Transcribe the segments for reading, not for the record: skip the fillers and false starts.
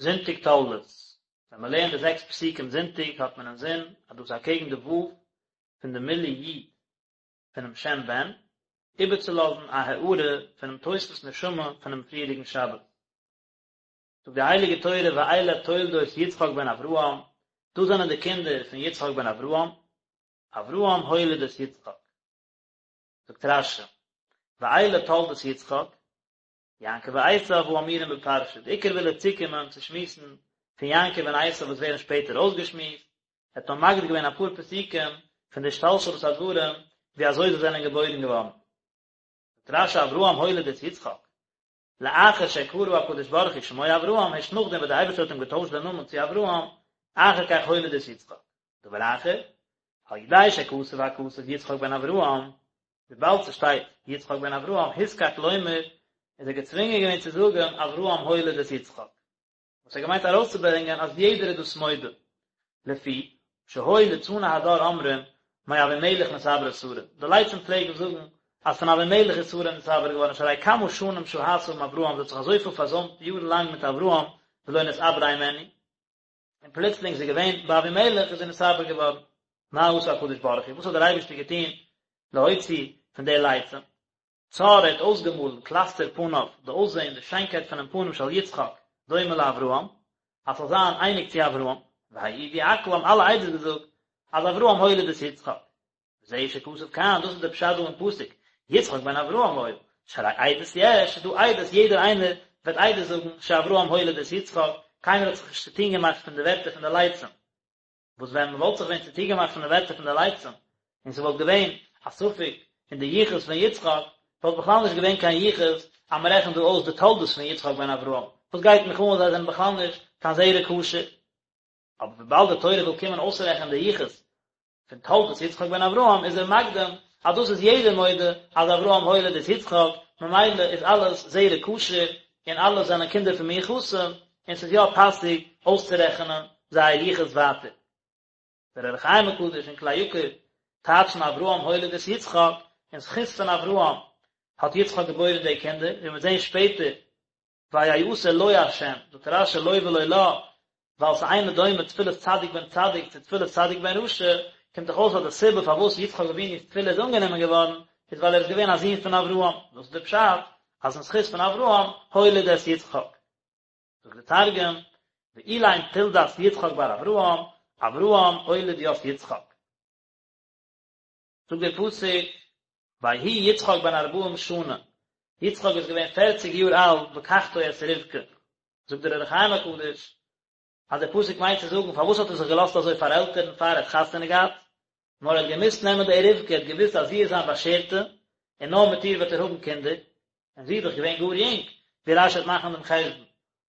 זונטאג תולדות, ווען מען לערנט די זעקס פסוקים זונטאג האט מען אינזין אז דאס איז אקעגן די ו' פון די מילוי י' פונעם שם בן, איבערצולאזן א הארה פונעם תוספות נשמה פונעם פריערדיגן שבת. זאגט די הייליגע תורה ואלה תולדות יצחק בן אברהם, דאס זענען די קינדער פון יצחק בן אברהם, אברהם הוליד את יצחק. זאגט רש"י, ואלה תולדות יצחק, יעקב ועשיו האמורים בפרשה, די עיקר וויל ער צוקומען צו שמועסן פון יעקב און עשיו וואס ווערן שפעטער אויסגעשמועסט, ער האט נאר מקדים געווען אפאר פסוקים פון די השתלשלות הדברים ווי אזוי זיי זענען געבוירן געווארן. זאגט רש"י אברהם הוליד את יצחק, לאחר שקרא הקדוש ברוך הוא שמו אברהם, הערשט נאכדעם וואס דער אייבערשטער האט אים געטוישט דעם נאמען צו אברהם, אחר כך הוליד את יצחק. דבר אחר, על ידי שכתב הכתוב יצחק בן אברהם, וויבאלד ס'שטייט יצחק בן אברהם, הוזקק לומר, איז ער געצווינגען געווען צו זאגן אברהם הוליד את יצחק. וואס ער געמיינט ארויסצוברענגען אז יעדער איז דאס מודה, לפי שהיו ליצני הדור אומרים מאבימלך נתעברה שרה, די לצים פלעגן זאגן אז פון אבימלך איז שרה נתעבר געווארן שהרי כמה שנים שהתה עם אברהם, זי האט זיך אזויפיל פארזוימט יארן לאנג מיט אברהם ולא נתעברה הימנו, און פלוצלינג איז זי געווען ביי אבימלך איז זי נתעבר געווארן. מה עשה הקדוש ברוך הוא, וואס האט דער אייבערשטער געטון להוציא פון די לצים? צר ער האט אויסגעמאלן קלסתר פניו, די אויסזען, די שיינקייט פונעם פנים של יצחק, דומה לאברהם, אז ס'זאל זיין אייניג צו אברהם, והעידו הכל האבן אלע עדות געזאגט אז אברהם הוליד את יצחק. וזהו שכתוב כאן, דאס איז דער פשט דא אין פסוק, יצחק בן אברהם היה, שהרי עדות יש, ס'איז דא עדות, יעדער איינער וועט עדות זאגן שאברהם הוליד את יצחק, קיינער האט זיך נישט צוטון געמאכט פון די ווערטער פון די לצים. וואס ווען מען וואלט זיך ווען צוטון געמאכט פון די ווערטער פון די לצים, און ס'וואלט געווען א ספק אין די יחוס פון יצחק, וואלט בכלל נישט געווען קיין יחוס אז מען רעכנט דא אויס די תולדות פון יצחק בן אברהם, וואס גייט מיך אן אז זיי זענען בכלל נישט קיין זרע כשר. אבער וויבאלד די תורה וויל קומען אויסרעכענען די יחוס פון תולדות יצחק בן אברהם איז ער מקדים אז דאס איז יעדער מודה אז אברהם הוליד את יצחק, ממילא איז אלעס זרע כשר און אלע זענען קינדער פון מיוחסים, און ס'איז יא פאסיג אויסצורעכענען זייער יחוס ווייטער. דער אור החיים הקדוש און כלי יקר טייטשן אברהם הוליד את יצחק, אין זכות פון אברהם האט יצחק געבוירן די קינדער, ווי מ'וועט זען שפעטער ויעתר לו השם, זאגט רש"י לו ולא לה, ווייל ס'אינו דומה תפילת צדיק בן צדיק צו תפילת צדיק בן רשע, קומט דאך אויס אז די סיבה פארוואס יצחק אבינו'ס תפילה איז אנגענומען געווארן, איז ווייל ער איז געווען א זון פון אברהם, דאס איז די פשט אז אין זכות פון אברהם הוליד את יצחק. זאגט די תרגום, ואלין תולדת יצחק בר אברהם, אברהם אוליד ית יצחק. זאגט דער פסוק, ויהי יצחק בן ארבעים שנה, יצחק איז געווען פערציג יאר אלט בקחתו את רבקה, זאגט דער אור החיים הקדוש, אז דער פסוק מיינט צו זאגן פארוואס האט ער זיך געלאזט אזוי פארעלטערן פאר ער האט חתונה געהאט, נאר ער האט געמוזט נעמען די רבקה, ער האט געוואוסט אז זי איז זיין באשערטע, און נאר מיט איר וועט ער האבן קינדער, און זי איז דאך געווען גאר יונג, ווי רש"י וועט מאכן דעם חשבון,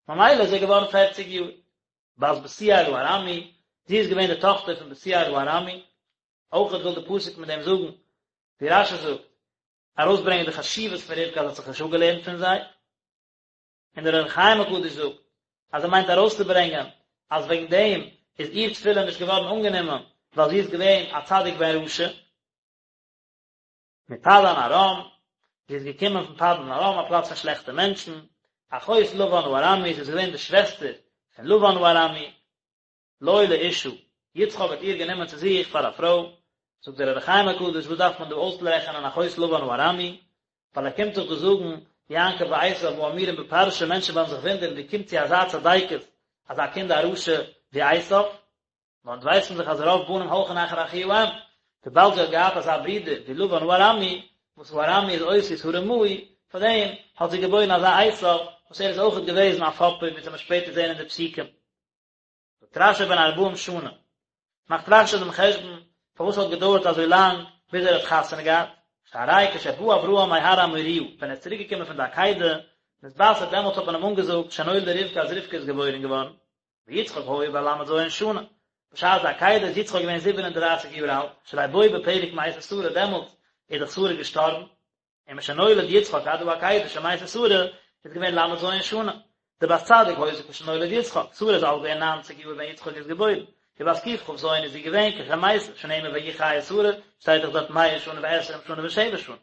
ממילא איז ער געווארן פערציג יאר. בת בתואל הארמי, זי איז געווען די טאכטער פון בתואל הארמי, אויכעט וויל די פסוק מיט דעם זאגן, ווי רש"י זאגט, ארויסברענגען די חשיבות פון רבקה אז זי האט זיך נישט אפגעלערנט פון זיי, און דער אור החיים הקדוש זאגט אז ער מיינט ארויסצוברענגען אז וועגן דעם איז איר תפילה נישט געווארן אנגענומען ווייל זי איז געווען א צדיק בן רשע. מפדן ארם, זי איז געקומען פון פדן ארם, א פלאץ פון שלעכטע מענטשן, אחות לבן הארמי, זי איז געווען די שוועסטער פון לבן הארמי, לו לאשה, יצחק האט איר גענומען צו זיך פאר א פרוי, זאגט דער אור החיים הקדוש, וואס דארף מען דא אויסרעכענען אחות לבן הארמי, ווייל ער קומט דאך דא זאגן, יעקב ועשו האמורים בפרשה, מענטשן וועלן זיך וואונדערן ווי קומט צו אזא צדיקת אזא קינד א רשע ווי עשו, נאר אונז ווייסן דאך אז רוב בנים הולכין אחר אחי האם, וויבאלד זי האט געהאט אזא ברודער ווי לבן הארמי, וואס הארמי איז אותיות הרמאי, פאר דעם האט זי געבוירן אזא עשו, וואס ער איז אויכעט געוועזן א פאפער ווי אונז וועלן שפעטער זען אין די פסוקים. זאגט רש"י בן ארבעים שנה, מאכט רש"י דעם חשבון פארוואס האט געדויערט אזוי לאנג ביז ער האט חתונה געהאט, שהרי כשבא אברהם מהר המוריה, ווען ער איז צוריק געקומען פון די עקידה, נתבשר דעמאלטס האט מען אים אנגעזאגט שנולדה רבקה אז רבקה איז געבוירן געווארן, ויצחק היה בן ל"ז שנה, בשעת די עקידה איז יצחק געווען 37 יאר אלט, שהרי בו בפרק מתה שרה דעמאלטס איז דאך שרה געשטארבן, און משנולד יצחק עד העקידה שמתה שרה איז געווען ל"ז שנה, דבת צדיק היתה כשנולד יצחק, שרה איז אלט געווען ניינציג יאר ווען יצחק איז געבוירן, ובת קכ"ז איז זי געווען כשמתה, שנאמר ויהיו חיי שרה, שטייט דאך דארט מאה שנה ועשרים שנה ושבע שנים.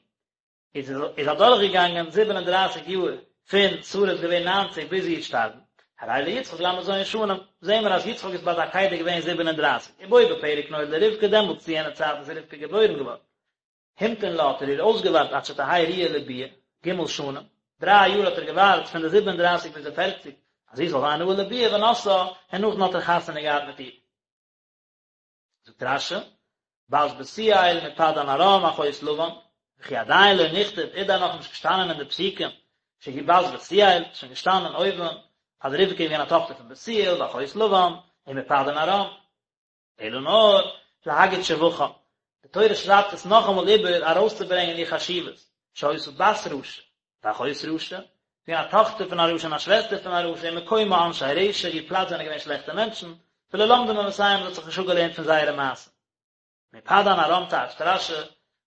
איז איז אדורך געגאנגען 37 יאר פון שרה איז געווען 90 ביז זי איז געשטארבן. הרי ליצחק ל"ז שנים, זעהן מיר אז יצחק איז ביי די עקידה געווען 37, ובו בפרק נולדה רבקה, דעמאלטס צו יענע צייט איז רבקה געבוירן געווארן. המתין לה האט ער איר אויסגעווארט עד שתהא ראויה לביאה, ג' שנים, דריי יאר האט ער געווארט פון די 37 ביז די פערציג אז זי זאל זיין ראוי לביאה ונשאה, און נאכדעם האט ער חתונה געהאט מיט איר. זאגט רש"י, בת בתואל מפדן ארם אחות לבן, וכי עדיין לא נכתב, איז דען נאכנישט געשטאנען אין די פסוקים שהיא בת בתואל, ס'איז שוין געשטאנען אויבן אז רבקה איז געווען א טאכטער פון בתואל ואחות לבן, ומפדן ארם. אלא נאר להגיד שבחה, די תורה שרייבט עס נאכאמאל איבער ארויסצוברענגען איר חשיבות, שהיתה בת רשע, ואחות רשע, געווען א טאכטער פון א רשע און א שוועסטער פון א רשע, ומקומה אנשי רשע, איר פלאץ זענען געווען שלעכטע מענטשן, ולא למדה מעשיהם, זי האט זיך נישט אפגעלערנט פון זייערע מעשים. מפדן ארם טייטשט רש"י,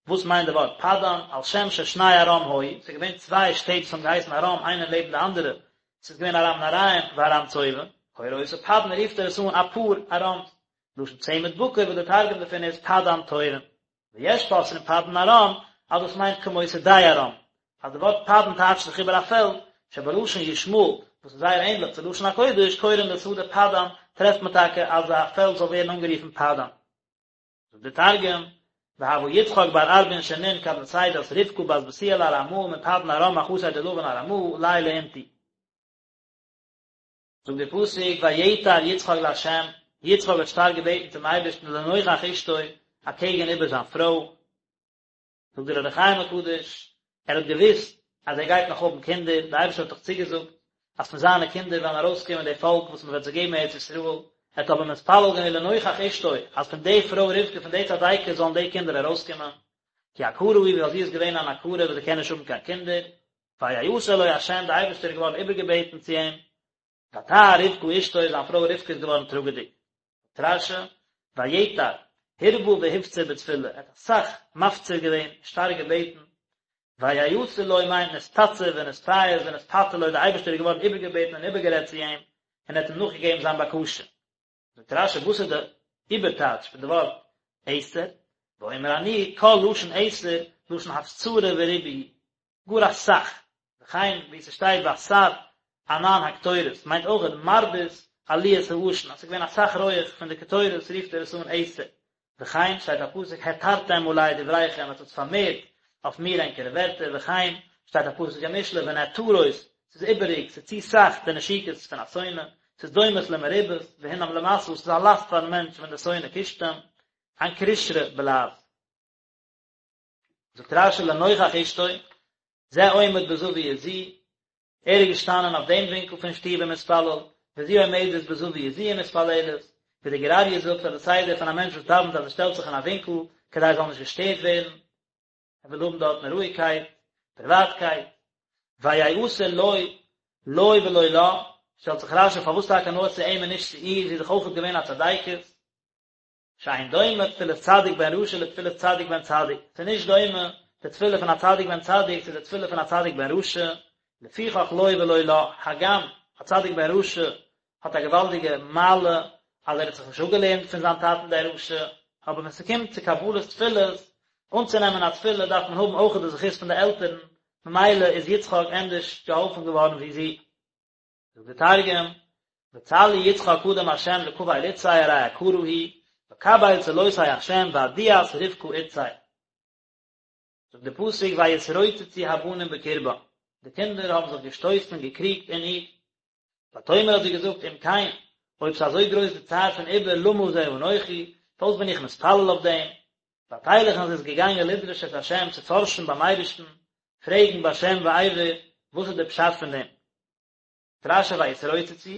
וואס מיינט די ווארט פדן, על שם ששני ארם היו, ס'איז געווען צוויי שטעט וואס האבן געהייסן ארם איינע לעבן די אנדערע, ס'איז געווען ארם נהריים וארם צובה, קורא אותו פדן רופט ער עס אן א פאר ארם'ס, לשון צמד בקר וואס די תרגום דערפון איז פדן תורין. ויש פותרין פדן ארם אז דאס מיינט כמו שדה ארם, אז די ווארט פדן טייטשט זיך איבער א פעלד, שבלשון ישמעאל, וואס איז זייער ענדליך צו לשון הקודש, קורין לשדה פדן, טרעפט מען טאקע אז א פעלד זאל ווערן אנגערופן פדן. זאגט דער תרגום, והוה יצחק בר ארבעין שנין כד נסידת רבקה בת בתואל הארמאה מפדן ארם אחתיה דלבן ארמאה ליה לאינתו. זאגט דער פסוק ויעתר יצחק לה', יצחק האט שטארק געבעטן צום אייבערשטן לנוכח אשתו, אקעגן איבער זיין פרוי, זאגט דער אור החיים הקדוש, ער האט געוואוסט אז ער גייט נאך האבן קינדער, דער אייבערשטער האט דאך צוגעזאגט אז פון זיינע קינדער וועלן ארויסקומען די פאלק וואס מען וועט זיי געבן ארץ ישראל, ער האט אבער מתפלל געווען לנוכח אשתו אז פון די פרוי רבקה פון די צדיקת זאלן די קינדער ארויסקומען, כי עקרה היא ווייל זי איז געווען אן עקרה וואס זי קען נישט האבן קיין קינדער, ויעתר לו ה' די אייבערשטער איז געווארן איבערגעבעטן צו אים, ותהר רבקה אשתו זיין פרוי רבקה איז געווארן טראגעדיג. זאגט רש"י, ויעתר, הרבה והפציר בתפילה, ער האט אסאך מפציר געווען, שטארק געבעטן, ויעתר לו מיינט נתפצר ונתפייס ונתפתה לו, דער אייבערשטער איז געווארן איבערגעבעטן און איבערגערעדט צו אים, און ער האט אים נאכגעגעבן זיין בקשה. זאגט רש"י וואס איז די איבערטייטש פון די ווארט עתר, ואומר אני כל לשון עתר לשון הפצרה וריבוי הוא, גאר אסאך, וכן ווי ס'שטייט והסר ענן הקטורת מיינט אויך מרבית עליית העשן אז ס'איז געווען אסאך רויעך פון די קטורת רופט ער עס אן עתר, וכן שטייט א פסוק העתרתם עלי דבריכם עטס האט פארמערט אויף מיר ענקערע ווערטער וכן שטייט א פסוק אין משלי ונעתרות ס'איז איבעריג ס'איז צו סאך די נשיקות פון א שונא ס'איז דומות למרובות והנם למשא ס'איז א לאסט פארן מענטש ווען די שונא קישט אים אנקרישרא בלע"ז. זאגט רש"י לנוכח אשתו זה עומד בזוית זו ער איז געשטאנען אויף דעם ווינקל פון שטוב ומתפלל, וזו עומדת בזוית זו ומתפללת, ווי דער גור אריה זאגט אז די סדר פון א מענטש וואס דאווענט אז ער שטעלט זיך אין א ווינקל כדי ער זאל נישט געשטערט ווערן, ער וויל האבן דארטן רואיגקייט, פריוואטקייט. ויעתר לו, לו ולא לה, שטעלט זיך רש"י פארוואס טאקע נאר צו אים און נישט צו איר, זי איז דאך אויכעט געווען א צדיקת. שאין דומה תפילת צדיק בן רשע לתפילת צדיק בן צדיק, ס'איז נישט דומה די תפילה פון א צדיק בן צדיק צו די תפילה פון א צדיק בן רשע, לפיכך לו ולא לה, הגם א צדיק בן רשע האט א געוואלדיגע מעלה אז ער האט זיך נישט אפגעלערנט פון זיין טאטן דער רשע, אבער ווען ס'קומט צו קבלת תפילות, אנצונעמען א תפילה דארף מען האבן אויך די זכות פון די עלטערן, ממילא איז יצחק ענדערש געהאלפן געווארן ווי זי. זאגט דער תרגום, וצלי יצחק קדם ה' לקבל אתתיה ארי עקרה היא, וקביל צלותיה ה' ועדיאת רבקה אתתיה. זאגט דער פסוק ויתרוצצו הבנים בקרבה, די קינדער האבן זיך געשטויסן און געקריגט אין איר. ותאמר האט זי געזאגט אם כן, אויב ס'איז אזוי גרויס די צער פון עיבור למה זה אנכי, פארוואס בין איך מתפלל אויף דעם? ותלך און זי איז געגאנגען לדרוש את ה' צו פארשן ביים אייבערשטן, פרעגן בשם ועבר, וואס איז דער פשט פון דעם? רש"י ויתרוצצו,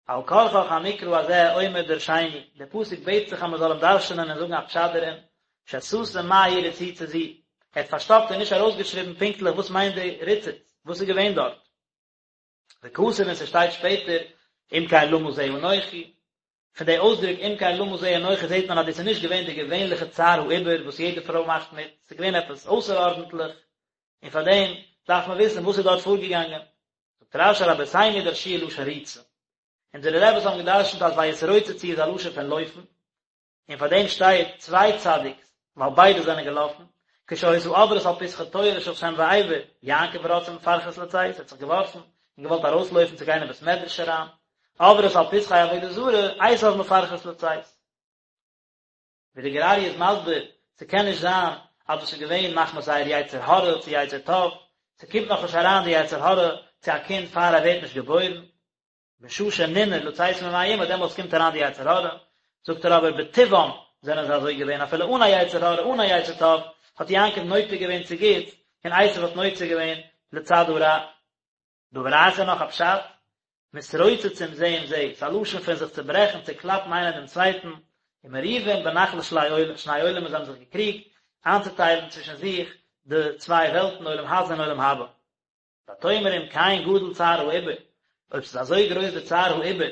על כרחך המקרא הזה אומר דרשני, דער פסוק בעט זיך אז מען זאל אים דרש'נען און זאגן א פשט דערין, שסתם מהי רציצה זו, ער האט פארשטאפט און נישט ארויסגעשריבן פונקטליך וואס מיינט די ריצוץ, וואס איז געווען דארט. וכתב און ס'שטייט שפעטער, אם כן למה זה אנכי, פון די אויסדרוק אם כן למה זה אנכי זעט מען אז דאס איז נישט געווען די געווענליכע צער העיבור וואס יעדע פרוי מאכט מיט, ס'איז געווען עפעס אויסערארדנטליך, און פאר דעם דארף מען וויסן וואס איז דארט פארגעגאנגען. זאגט רש"י רבותינו דרשוה לשון ריצה. אונזערע רעבעס האבן גע'דרש'נט אז ויתרוצצו איז א לשון פון לויפן, און פאר דעם שטייט צוויי צדיק'ס, ווייל ביידע זענען געלאפן, כשהיתה עוברת על פתחי תורה של שם ועבר, יעקב רץ ומפרכס לצאת, ער האט זיך געווארפן און געוואלט ארויסלויפן צו גיין אין בית מדרש אריין. עוברות על פתחי עבודה זרה, עשיו מפרכס לצאת. ווי די גור אריה איז מסביר, ס'קען נישט זיין אז דאס איז געווען מחמת זייער יצר הרע צו יצר טוב, ס'קומט נאכנישט אריין די יצר הרע צו א קינד פאר ער ווערט נישט געבוירן, בשעה שננער לצאת ממעי אמו דעמאלטס קומט אריין די יצר הרע, זאגט ער אבער בטבעם זענען זיי אזוי געווען אפילו אן א יצר הרע אן א יצר טוב האט יעקב נוטה געווען צו גוטס און עשו האט נוטה געווען לצד הרע. דבר אחר נאך א פשט, מתרוצצים זה עם זה, ס'איז א לשון פון זיך צוברעכן, צוקלאפן איינער דעם צווייטן, ומריבים בנחלת שני עולמות זיי האבן זיך געקריגט איינצוטיילן צווישן זיך די צוויי וועלטן עולם הזה און עולם הבא. ותאמר אם כן גדול צער העיבור, אויב ס'איז אזוי גרויס די צער העיבור,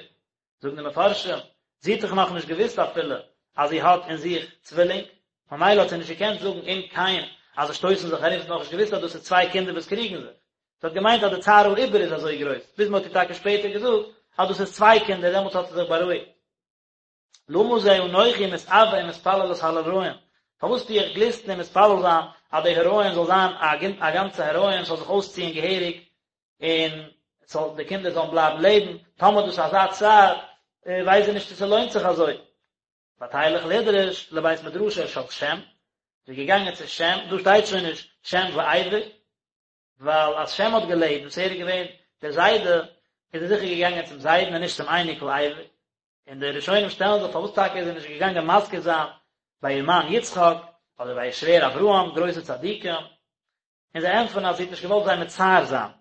זאגן די מפרשים, זי האט דאך נאכנישט געוואוסט אפילו אז זי האט אין זיך צווילינג, ממילא האט זי נישט געקענט זאגן אם כן אז זיי שטויסן זיך ארום, זי האט נאכנישט געוואוסט אז דאס איז צוויי קינדער וואס קריגן זיך, זי האט געמיינט אז די צער העיבור איז אזוי גרויס, ביז מען האט איר טאקע שפעטער געזאגט אז דאס איז צוויי קינדער, דעמאלטס האט זי זיך בארואיגט. למה זה אנכי מתאוה ומתפללת על הריון, פארוואס טו איך גליסטן און מתפלל זיין אז די הריון זאל זיין א גאנצע הריון, ס'זאל זיך אויסציען געהעריג, און ס'זאל די קינדער זאלן בלייבן לעבן, טאמער דאס איז אזא צער, ווייס איך נישט צו ס'לוינט זיך אזוי. ותלך לדרוש לבית מדרשו של שם, זי איז געגאנגען צו שם, דא שטייט שוין נישט שם ועבר, ווייל אז שם האט געלעבט, וואס ער איז געווען דער זיידע, איז ער זיכער געגאנגען צום זיידן און נישט צום אייניקל עבר. און די ראשונים שטעלן זיך פארוואס טאקע איז זי נישט געגאנגען מזכיר זיין ביי איר מאן יצחק, אדער ביי איר שווער אברהם, גרויסע צדיקים, און זיי ענטפערן אז זי האט נישט געוואלט זיי מצער זיין.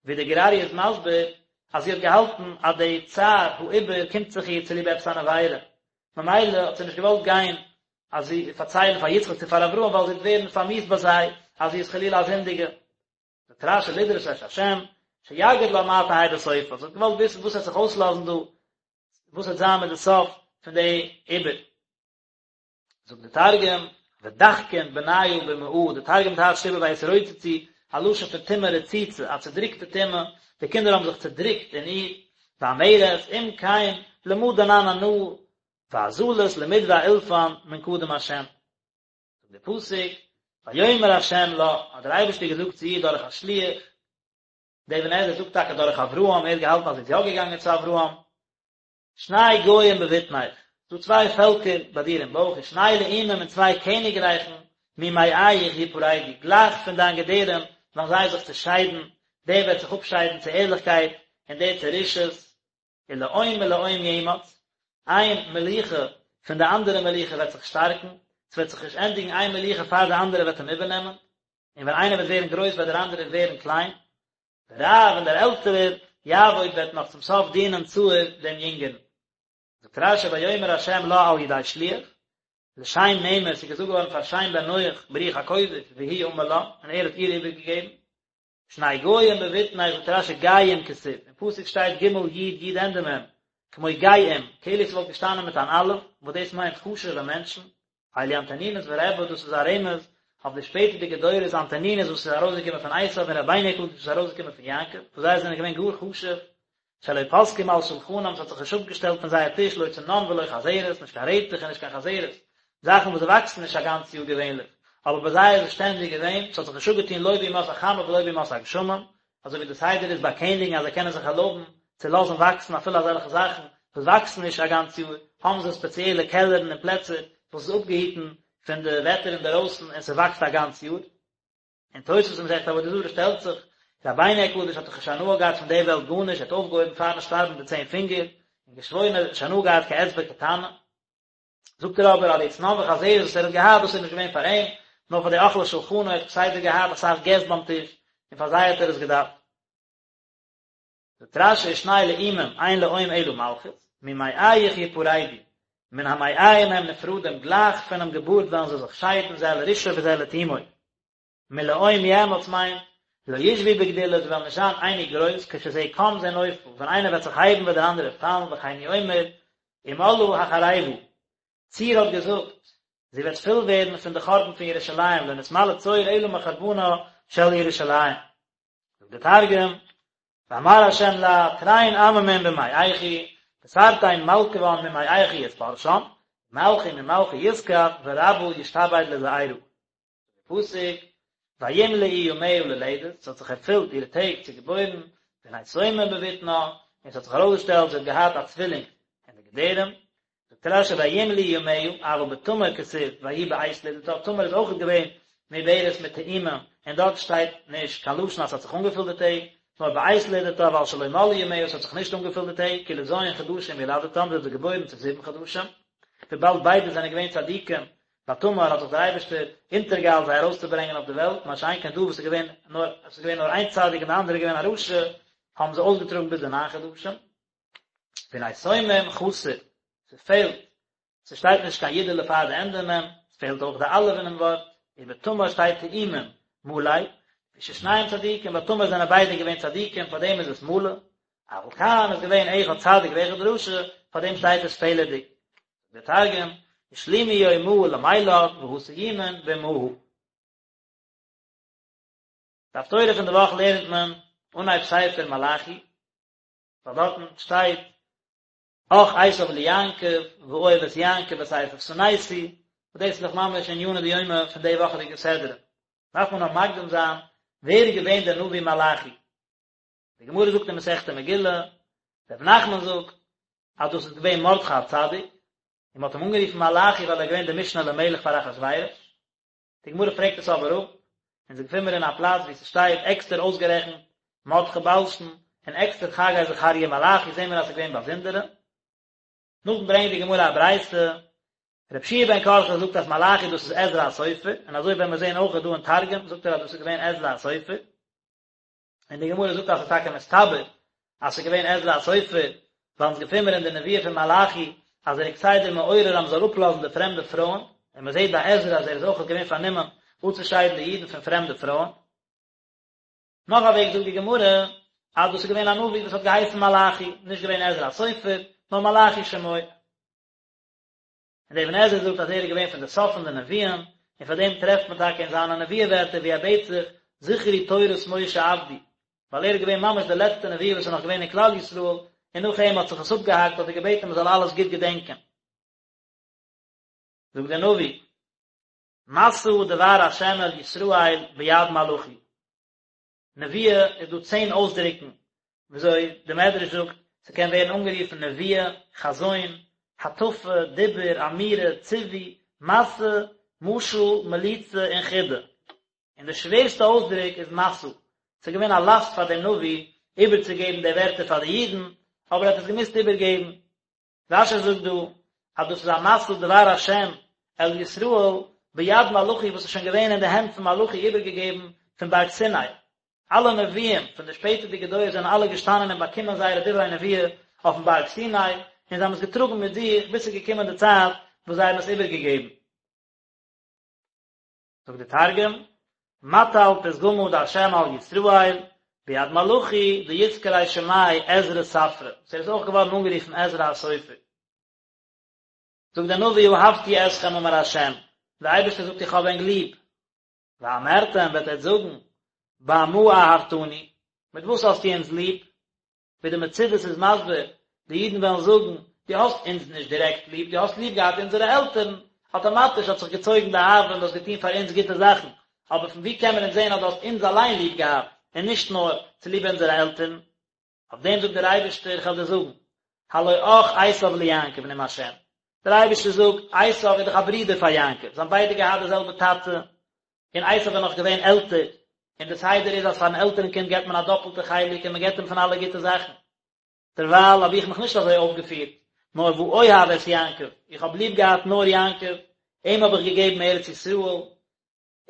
ווי דער גור אריה איז מסביר אז זי האט געהאלטן אז די צער העיבור קומט זיך איר צוליב עפעס אן עבירה, ממילא האט זי נישט געוואלט גיין אז זי פארציילן פאר יצחק צו פאר אברהם ווייל זי וועט ווערן פארמיאוסט ביי זיי אז זי איז חלילה א זינדיגע. זאגט רש"י לדרוש את השם שיגיד לה מה תהא בסופה, זי האט געוואלט וויסן וואס וועט זיך אויסלאזן דא, וואס וועט זיין מיט די סוף פון די עיבור. זאגט די תרגום, ודחקין בניא במעהא, די תרגום טייטשט איבער ויתרוצצו, א לשון פון טומאה רצוצה, א צודריקטע טומאה, די קינדער האבן זיך צודריקט אין איר, ואמרת, אם כן, למה דנן אנא, ואזלת למדבע אילפן מן קדם השם. זאגט דער פסוק, ויאמר השם לה, האט דער אייבערשטער געזאגט צו איר דורך א שליח, דער אבן עזרא זאגט טאקע דורך אברהם, ער האט געהאלטן אז זי איז יא געגאנגען צו אברהם, שני גוים בבטנך, ס'דא צוויי פעלקער ביי דיר אין בויך, ושני לאומים און צוויי קעניגרייכן, ממעיך יפרדו, גלייך פון דיין געדערים וועלן זיי זיך צעשיידן, דער וועט זיך אפשיידן צו ערליכקייט, און דער צו רשעות, ולאום מלאום יאמץ, איין מלוכה פון די אנדערע מלוכה וועט זיך שטארקן, ס'וועט זיך נישט ענדיגן איין מלוכה פאר די אנדערע וועט אים איבערנעמען, און ווען איינער וועט ווערן גרויס וועט דער אנדערער ווערן קליין. ורב און דער עלטערער יעבוד וועט נאך צום סוף דינען צעיר דעם יונגערן. זאגט רש"י ויאמר ה' לה על ידי שליח, לשם נאמר ס'איז געזאגט געווארן פאר שם בן נח ברוח הקודש והוא אמר לה, און ער האט איר איבערגעגעבן. שני גוים בבטנך זאגט רש"י גיים כתיב, אין פסוק שטייט ג' י' י' ענדע מ', כמו גאים, כאילו ס'וואלט געשטאנען מיט אן אלף, וואס דאס מיינט חשוב'ע מענטשן, אלו אנטונינוס ורבי דאס איז א רמז אויף די שפעטערדיגע דורות אנטונינוס וואס איז ארויסגעקומען פון עשיו און רבינו הקדוש וואס איז ארויסגעקומען פון יעקב וואס זיי זענען געווען גאר חשוב שלא פסקו מעל שלחנם ס'האט זיך נישט אפגעשטעלט פון זייער טיש לא צנון ולא חזרת נישט קיין רעטעך און נישט קיין חזרת זאכן וואס וואקסן נישט א גאנץ יאר געווענליך אבער ביי זיי איז עס שטענדיג געווען ס'האט זיך נישט אפגעטון לא בימות החמה ולא בימות הגשמים אזוי ווי די סדר איז ביי קעניגן אז זיי קענען זיך ערלויבן צו לאזן וואקסן אפילו אזעלכע זאכן וואס וואקסן נישט א גאנץ יאר, האבן זיי ספעציעלע קעלערן און פלעצער וואס איז אפגעהיטן פון די וועטער אינדערויסן און ס'וואקסט א גאנץ יאר. און תוספות אין מסכת עבודה זרה שטעלט זיך, רבינו הקדוש האט דאך נישט הנאה געהאט פון די וועלט גארנישט, ער האט אויפגעהויבן פארן שטארבן די צען פינגער, און געשוואוירן ער האט נישט הנאה געהאט כאצבע קטנה. זאגט ער אבער אז די צנון וחזרת וואס ער האט געהאט דאס איז נישט געווען פאר אים, נאר פאר די אוכלי שולחנו, ער האט כסדר געהאט אסאך געסט ביים טיש, און פאר זיי האט ער עס געדארפט. זאגט רש"י ושני לאומים אין לאום אלא מלכות, ממעיך יפרדו, מן המעיים הם נפרדים גלייך פונעם געבורט וועלן זיי זיך שיידן זה לרשעו וזה לתומו. מלאום יאמץ מיינט, לא ישבו בגדולה, זיי וועלן נישט זיין אייניג גרויס, כשזה קם זה נופל, ווען איינער וועט זיך הייבן וועט דער אנדערער פאלן, וכן הוא אומר, ומלאה החרבה, צור האט געזאגט, זי וועט פול ווערן פון די חורבן פון ירושלים, לא נתמלא צור אלא מחורבנה של ירושלים. זאגט דער תרגום, ואמר ה' לה, תרין עממין במעיכי, ותרתין מלכוון ממעיכי יתפרשן, ומלכא ממלכא יתכף, ורבא ישתעבד לזעירא. פסוק, וימלאו ימיה ללדת, ס'האט זיך ערפילט אירע טעג צו געבוירן, והנה תומים בבטנה, און ס'האט זיך ארויסגעשטעלט זי האט געהאט א צווילינג אין די געדערים, זאגט רש"י וימלאו ימיה, אבל בתמר כתיב ויהי בעת ללדתה, תמר איז אויכעט געווען מעוברת מיט תאומים, און דארט שטייט נישט קיין לשון אז ס'האט זיך אנגעפילט די טעג, נאר בעת ללדתה ווייל שלא מלאו ימיה ס'האט זיך נישט אנגעפילט די טעג, כי לז' חדשים ילדתם, זי האט זיי געבוירן צו זיבן חדשים, וויבאלד ביידע זענען געווען צדיקים, ביי תמר האט זיך דער אייבערשטער אונטערגעאיילט זיי ארויסצוברענגען אויף די וועלט, מה שאין כן דא וואס איז געווען נאר עס איז געווען נאר איין צדיק און די אנדערע איז געווען א רשע, האבן זיי אויסגעטראגן ביז די ניין חדשים. והנה תומים חסר, ס'פעלט, ס'שטייט נישט קיין יודעלע פאר די ענדע מ', ס'פעלט אויך די אלף אינעם ווארט, ובתמר שטייט תאומים מלא, לפי ששניהם צדיקים, ביי תמר זענען ביידע געווען צדיקים פארדעם איז עס מלא, אבל כאן איז געווען אחד צדיק ואחד רשע, פארדעם שטייט עס פעלערדיג. זאגט דער תרגום, ושלימו יומהא למילד והא תיומין באמהא. די הפטורה פון די וואך לערנט מען אנהייב ספר מלאכי, ווייל דארטן שטייט אח עשו ליעקב ואוהב את יעקב ואת עשו שנאתי, וואס דאס איז דאך ממש ענינא דיומא פון די וואכעדיגע סדרה. דארף מען נאר מקדים זיין ווער איז געווען דער נביא מלאכי. די גמרא זאגט אין מסכת מגילה, רב נחמן זאגט אז דאס איז געווען מרדכי הצדיק, און מען האט אים אנגערופן מלאכי ווייל ער איז געווען דער משנה למלך פאר אחשורוש. די גמרא פרעגט עס אבער אפ, אונז געפינען מיר אין א פלאץ וואו ס'שטייט עקסטער אויסגערעכנט מרדכי בלשן, און עקסטער חגי זכריה מלאכי, זעהן מיר אז ס'איז געווען באזונדערע. נאכדעם ברענגט די גמרא א ברייתא, רבי יהושע בן קרחה זאגט אז מלאכי דאס איז עזרא הסופר, און אזוי וועלן מיר זעהן אויך דא אין תרגום זאגט ער אז דאס איז געווען עזרא הסופר. און די גמרא זאגט אז ס'איז טאקע מסתבר אז ס'איז געווען עזרא הסופר, ווייל אונז געפינען מיר אין די נבואה פון מלאכי אז ער איז כסדר מעורר אז מ'זאל אפלאזן די פרעמדע פרויען, און מ'זעט ביי עזרא אז ער איז אויך געווען פארנומען אפצושיידן די אידן פון פרעמדע פרויען. נאך א וועג זאגט די גמרא אז דאס איז געווען א נביא וואס האט געהייסן מלאכי, נישט געווען עזרא הסופר, נאר מלאכי שמו. און דער אבן עזרא זאגט אז ער איז געווען פון די סוף פון די נביאים, און פאר דעם טרעפט מען טאקע אין זיינע נבואה ווערטער ווי ער בעט זיך זכרו תורת משה עבדי, ווייל ער איז געווען ממש דער לעצטער נביא וואס איז נאך געווען אין כלל ישראל, און נאך אים האט זיך עס אפגעהאקט האט ער געבעטן מען זאל אלעס גוט געדענקען. זאגט דער נביא, משא דבר השם אל ישראל ביד מלאכי. נבואה איז דא צען אויסדרוקן וויאזוי די מדרש זאגט ס'קען ווערן אנגערופן נבואה, חזון, הטפה, דיבור, אמירה, ציווי, משא, משל, מליצה און חידה. און די שווערסטע אויסדרוק איז משא, ס'איז געווען א לאסט פאר דעם נביא איבערצוגעבן די ווערטער פאר די אידן, אבער ער האט עס געמוזט איבערגעבן. רש"י זאגט דא אז דאס איז א משא דבר השם אל ישראל ביד מלאכי וואס איז שוין געווען אין די הענט פון מלאכי איבערגעגעבן פון בארג סיני. אלע נביאים פון די שפעטערדיגע דורות זענען אלע געשטאנען און באקומען זייערע דברי נבואה אויפן בארג סיני, און זיי האבן עס געטראגן מיט זיך ביז ס'איז געקומען די צייט וואס זיי האבן עס איבערגעגעבן. זאגט די תרגום, מטל פתגמא דהשם על ישראל, ביד מלאכי דיתקרי שמיה עזרא ספרא, וואס ער איז אויך געווארן אנגערופן עזרא הסופר. זאגט דער נביא אהבתי אתכם אמר השם, דער אייבערשטער זאגט איך האב ענק ליב, ואמרתם וועט עטץ זאגן, במה אהבתנו, מיט וואס האסטו אונז ליב? ווי די מצודות איז מסביר, די אידן וועלן זאגן, דו האסט אונז נישט דירעקט ליב, דו האסט ליב געהאט אונזערע עלטערן, אטאמאטיש האט זיך געצויגן די אהבה און דו האסט געטון פאר אונז גוטע זאכן, אבער פון וואו קען מען אונז זען אז דו האסט אונז אליין ליב געהאט, און נישט נאר צוליב אונזערע עלטערן? אויף דעם זאגט דער אייבערשטער, איך וועל דיר זאגן, הלא אח עשו ליעקב נאם השם, דער אייבערשטער זאגט, עשו איז דאך א ברודער פאר יעקב, זיי האבן ביידע געהאט די זעלבע טאטע, און עשו איז נאך געווען עלטער, און די סדר איז אז פארן עלטערן קינד געבט מען א דאפלטע חלק און מען געבט אים פון אלע גוטע זאכן. דערווייל האב איך מיך נישט אזוי אויפגעפירט, נאר ואוהב את יעקב, איך האב ליב געהאט נאר יעקב, אים האב איך געגעבן ארץ ישראל,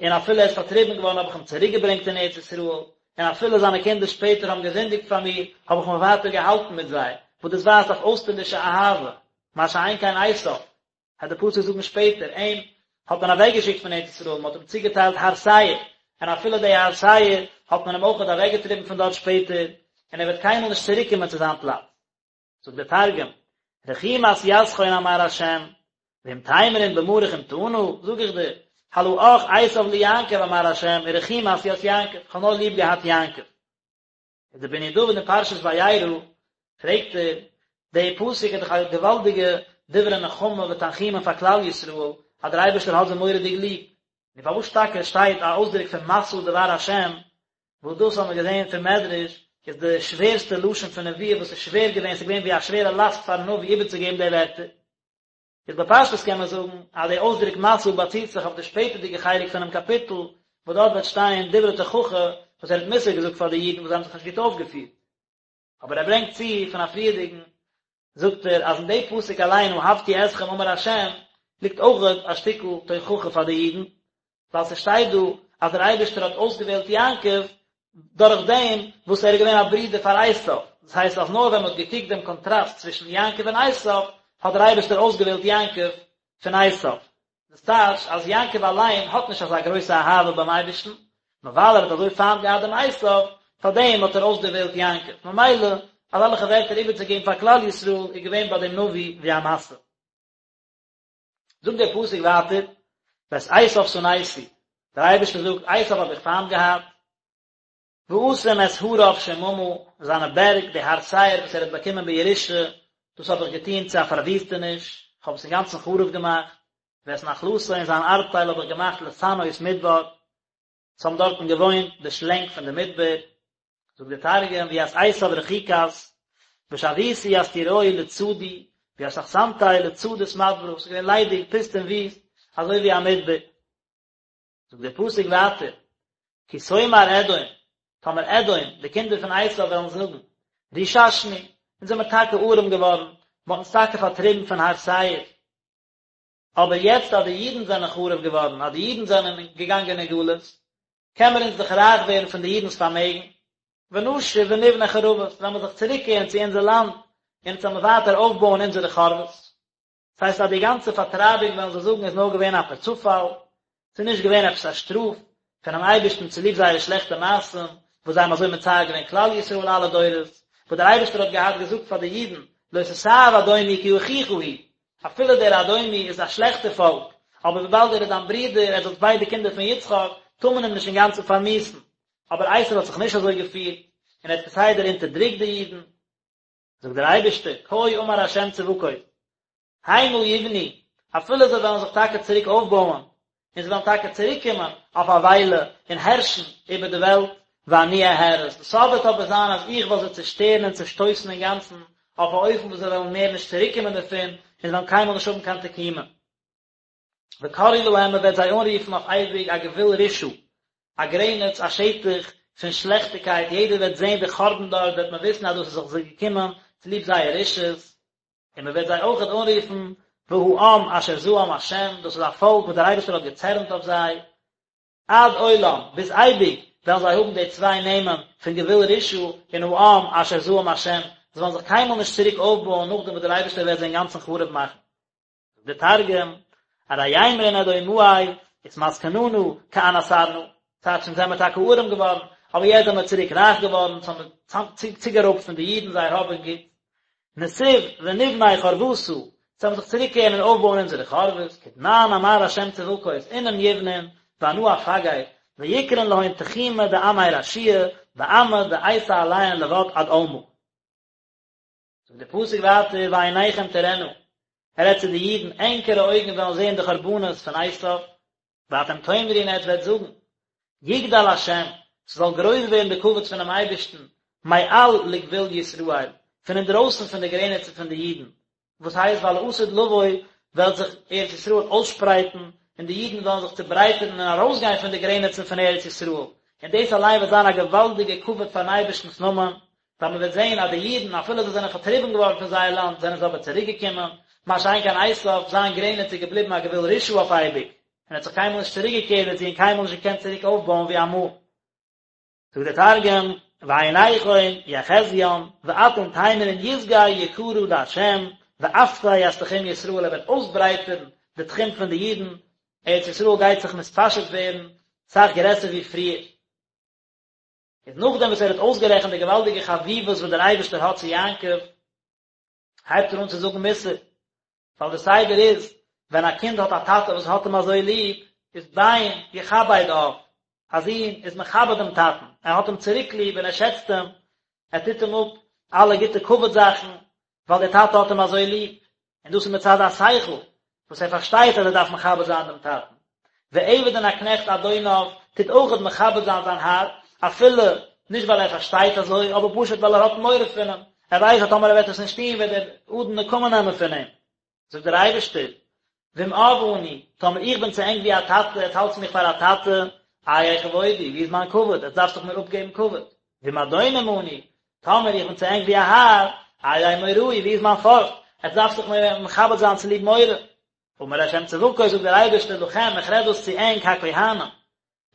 און אפילו ער איז פארטריבן געווארן האב איך אים צוריקגעברענגט אין ארץ ישראל, און אפילו זיינע קינדער שפעטער האבן געזינדיגט פאר מיר, האב איך מיך ווייטער געהאלטן מיט זיי, וואס דאס ווייזט אויף אויסטערלישע אהבה, מה שאין כן עשו, וועט דער פסוק זאגן שפעטער, אים האט מען אוועקגעשיקט פון ארץ ישראל, מען האט אים צוגעטיילט הר שעיר, און אפילו די הר שעיר האט מען אים אויכעט אוועקגעטריבן פון דארט שפעטער, און ער וועט קיינמאל נישט צוריקקומען צו זיין פלאץ. זאגט דער תרגום, רחימת יתכון אמר השם, ואם תימרון במה רחימתנא, זאג איך דיר, הלא אח עשו ליעקב אמר השם, ורחימת ית יעקב, איך האב נאר ליב געהאט יעקב. איז דער בני דוד אין פרשת וירא פרעגט ער, די פסוק איז דאך א געוואלדיגע דברי נחמה ותנחומין פאר כלל ישראל אז דער אייבערשטער האט זיי מורא'דיג ליב, נו פארוואס טאקע שטייט א אויסדרוק פון משא דבר השם, וואס דאס האבן מיר געזען פון מדרש איז די שווערסטע לשון פון נבואה וואס איז שווער געווען, ס'איז געווען ווי א שווערע לאסט פארן נביא איבערצוגעבן די ווערטער. איז בפשטות קען מען זאגן אז די אויסדרוק משא באציט זיך אויף די שפעטערדיגע חלק פונעם קאפיטל, וואס דארט וועט שטיין דברי תוכחה וואס ער האט מוסר געזאגט פאר די אידן וואס זיי האבן זיך נישט גוט אויפגעפירט. אבער ער ברענגט צו פון א פריערדיגן, זאגט ער אז אין די פסוק אליין אהבתי אתכם אמר ה' ליגט אויך א שטיקל תוכחה פאר די אידן, ווייל ס'שטייט דא אז דער אייבערשטער האט אויסגעוועלט יעקב דורך דעם וואס ער איז געווען א ברודער פאר עשיו, דאס הייסט אז נאר ווען מ'האט געקוקט דעם קאנטראסט צווישן יעקב און עשיו האט דער אייבערשטער אויסגעוועלט יעקב פון עשיו. דאס טייטש אז יעקב אליין האט נישט אזא גרויסע אהבה ביים אייבערשטן, נאר ווייל ער האט אזוי פיינט געהאט דעם עשיו, פאר דעם האט ער אויסדערוועלט יעקב. ממילא, אזעלכע ווערטער איבערצוגעבן פאר כלל ישראל איז געווען ביי דעם נביא ווי א משא. זאגט דער פסוק ווייטער, ואת עשיו שנאתי, דער אייבערשטער זאגט, עשיו האב איך פיינט געהאט, ואשים את הריו שממה, זיינע בערג, די הר שעיר וואס ער האט באקומען בירושה, דאס האב איך געטון צו א פארוויסטעניש, איך האב עס אינגאנצן חרוב געמאכט, ואת נחלתו און זיין ארבטייל האב איך געמאכט לתנאות מדבר, עס האבן דארטן געוואוינט די שלענג פון די מדבר, זאגט דער תרגום, וית עשו רחיקת, ושויתי ית טוראיהי לצדי, וית אחסנתיה לצדות מדברא, ס'איז געווען ליידיג, פוסט און וויסט, אזוי ווי א מדבר. זאגט דער פסוק ווייטער, כי תאמר אדום, טאמער אדום, די קינדער פון עשו וועלן זאגן, רוששנו, אונז זעמער טאקע ארעם געווארן, מען האט אונז טאקע פארטריבן פון הר שעיר, אבער יעצט אז די אידן זענען חרוב געווארן, אז די אידן זענען געגאנגען אין גלות, קען מיר אונז דאך רייך ווערן פון די אידנ'ס פארמעגן, ונשוב ונבנה חרבות, וועלן מיר זיך צוריקקערן צו אונזער לאנד, און אונז וועלן מיר ווייטער אויפבויען אונזערע חרבות. דאס הייסט אז די גאנצע פארטרייבונג וועלן זיי זאגן איז נאר געווען א פערצופאל, ס'איז נישט געווען עפעס א שטראף פונעם אייבערשטן צוליב זייערע שלעכטע מעשים וואס זיי האבן אזוי מצער געווען כלל ישראל אלע דורות, וואס דער אייבערשטער האט געהאט געזאגט פאר די אידן לא תתעב אדומי כי אחיך הוא, אפילו דער אדומי איז א שלעכטער פאלק, אבער וויבאלד ער איז דיין ברודער, עטס זענט ביידע קינדער פון יצחק, טאר מען אים נישט אינגאנצן פארמיאוסן. אבער עשו האט זיך נישט אזוי געפירט, און ער האט כסדר אונטערדרוקט די אידן. זאגט דער אייבערשטער, כה אמר ה' צבקות, המה יבנו, אפילו זיי וועלן זיך טאקע צוריק אויפבויען, און זיי וועלן טאקע צוריק קומען אויף א וויילע און הערשן איבער די וועלט, ואני אהרוס, די סוף וועט אבער זיין אז איך וועל זיי צעשטערן און צעשטויסן אינגאנצן, אויף א אופן וואס זיי וועלן מער נישט צוריק קומען דערפון, און זיי וועלן קיינמאל נישט האבן קיין תקומה. וקראו להם מען וועט זיי אנרופן אויף אייביג א גבול רשעה, א גרעניץ, א שטח פון שלעכטיגקייט, יעדער וועט זען די חורבן דארט, וועט מען וויסן אז דאס איז זיך זיי געקומען צוליב זייער רשעות, און מען וועט זיי אויכעט אנרופן והעם אשר זעם השם, דאס איז א פאלק וואס דער אייבערשטער האט געצערנט אויף זיי, עד עולם, ביז אייביג, וועלן זיי האבן די צוויי נעמען פון גבול רשעה און העם אשר זעם השם, זיי וועלן זיך קיינמאל נישט צוריק אויפבויען נאכדעם וואס דער אייבערשטער וועט זיי אינגאנצן חרוב מאכן. זאגט דער תרגום, ארי יימרון אדומאי אתמסכננא כען אסרנא, טייטש אונז זעמער טאקע ארעם געווארן, אבער יעצט זעמער צוריק רייך געווארן, אונז האבן צוגערויבט פון די אידן זייער האב און גוטס, נתיב ונבני חרבתא, אונז וועלן זיך צוריקקערן און אויפבויען אונזערע חרבות, כדמאן אמר השם צבקות אינון יבנון, ואנא אפגר, ויקרון להון תחומא דעמי רשיעי, ועמא דאייתי עליהון לבד עד עלמא. זאגט דער פסוק ווייטער ועיניכם תראינה, ער רעדט צו די אידן, ענקערע אויגן וועלן זען די חרבנות פון עשיו, ואתם תאמרו און עטס וועט זאגן, יגדל השם, ס'זאל גרויס ווערן די כבוד פונעם אייבערשטן, מעל לגבול ישראל, פון אינדרויסן פון די גרעניצן פון די אידן, וואס הייסט ווייל לעתיד לבוא וועלט זיך ארץ ישראל אויסשפרייטן און די אידן וועלן זיך צוברייטערן און ארויסגיין פון די גרעניצן פון ארץ ישראל, און דאס אליין וועט זיין א געוואלדיגע כבוד פארן אייבערשטנ'ס נאמען, ווייל מען וועט זען אז די אידן אפילו זיי זענען פארטריבן געווארן פון זייער לאנד זענען זיי אבער צוריק געקומען, מה שאין כן עשיו, זיין גרעניץ איז געבליבן א גבול רשעה אויף אייביג, און ער האט זיך קיינמאל נישט צוריק געקערט דערצו און קיינמאל נישט געקענט צוריק אויפבויען ווי אמאל. זאגט דער תרגום, ועיניכון יחזיין, ואתון תימרון יסגי יקרא דה', ואפתי ית תחום ישראל, ער וועט אויסברייטערן די תחום פון די אידן, ארץ ישראל גייט זיך מתפשט ווערן סאך גרעסער ווי פריער. איז נאכדעם וואס ער האט אויסגערעכנט די געוואלדיגע חביבות וואס דער אייבערשטער האט צו יעקב, הייבט ער אן צו זאגן מוסר, ווייל דער סדר איז, ווען א קינד האט א טאטע וואס האט אים אזוי ליב, איז בן יכבד אב, א זון איז מכבד דעם טאטן, ער האט אים צוריק ליב און ער שעצט אים, ער טוט אים אפ אלע גוטע כבוד זאכן, ווייל דער טאטע האט אים אזוי ליב, און דאס איז מצד השכל, וואס ער פארשטייט אז ער דארף מכבד זיין דעם טאטן. ועבד און א קנעכט אדוניו טוט אויכעט מכבד זיין זיין האר, אפילו נישט ווייל ער פארשטייט אזוי, אבער פשוט ווייל ער האט מורא פון אים, ער ווייסט אז טאמער ער וועט עס נישט טון וועט דער אדון נקמה נעמען פון אים. זאגט דער אייבערשטער, ואם אב אני, טאמער איך בין צו ענק ווי א טאטע, עטס האלטס מיך פאר א טאטע, איה כבודי, ווי איז מיין כבוד, עטס דארפסט דאך מיר אפגעבן כבוד. ואם אדונים אנו, טאמער איך בין צו ענק ווי א האר, איה מוראי, ווי איז מיין פארכט, עטס דארפסט דאך מיר מכבד זיין צוליב מורא. אמר ה' צבקות, זאגט דער אייבערשטער לכם, איך רעד דאס צו ענק הכהנים,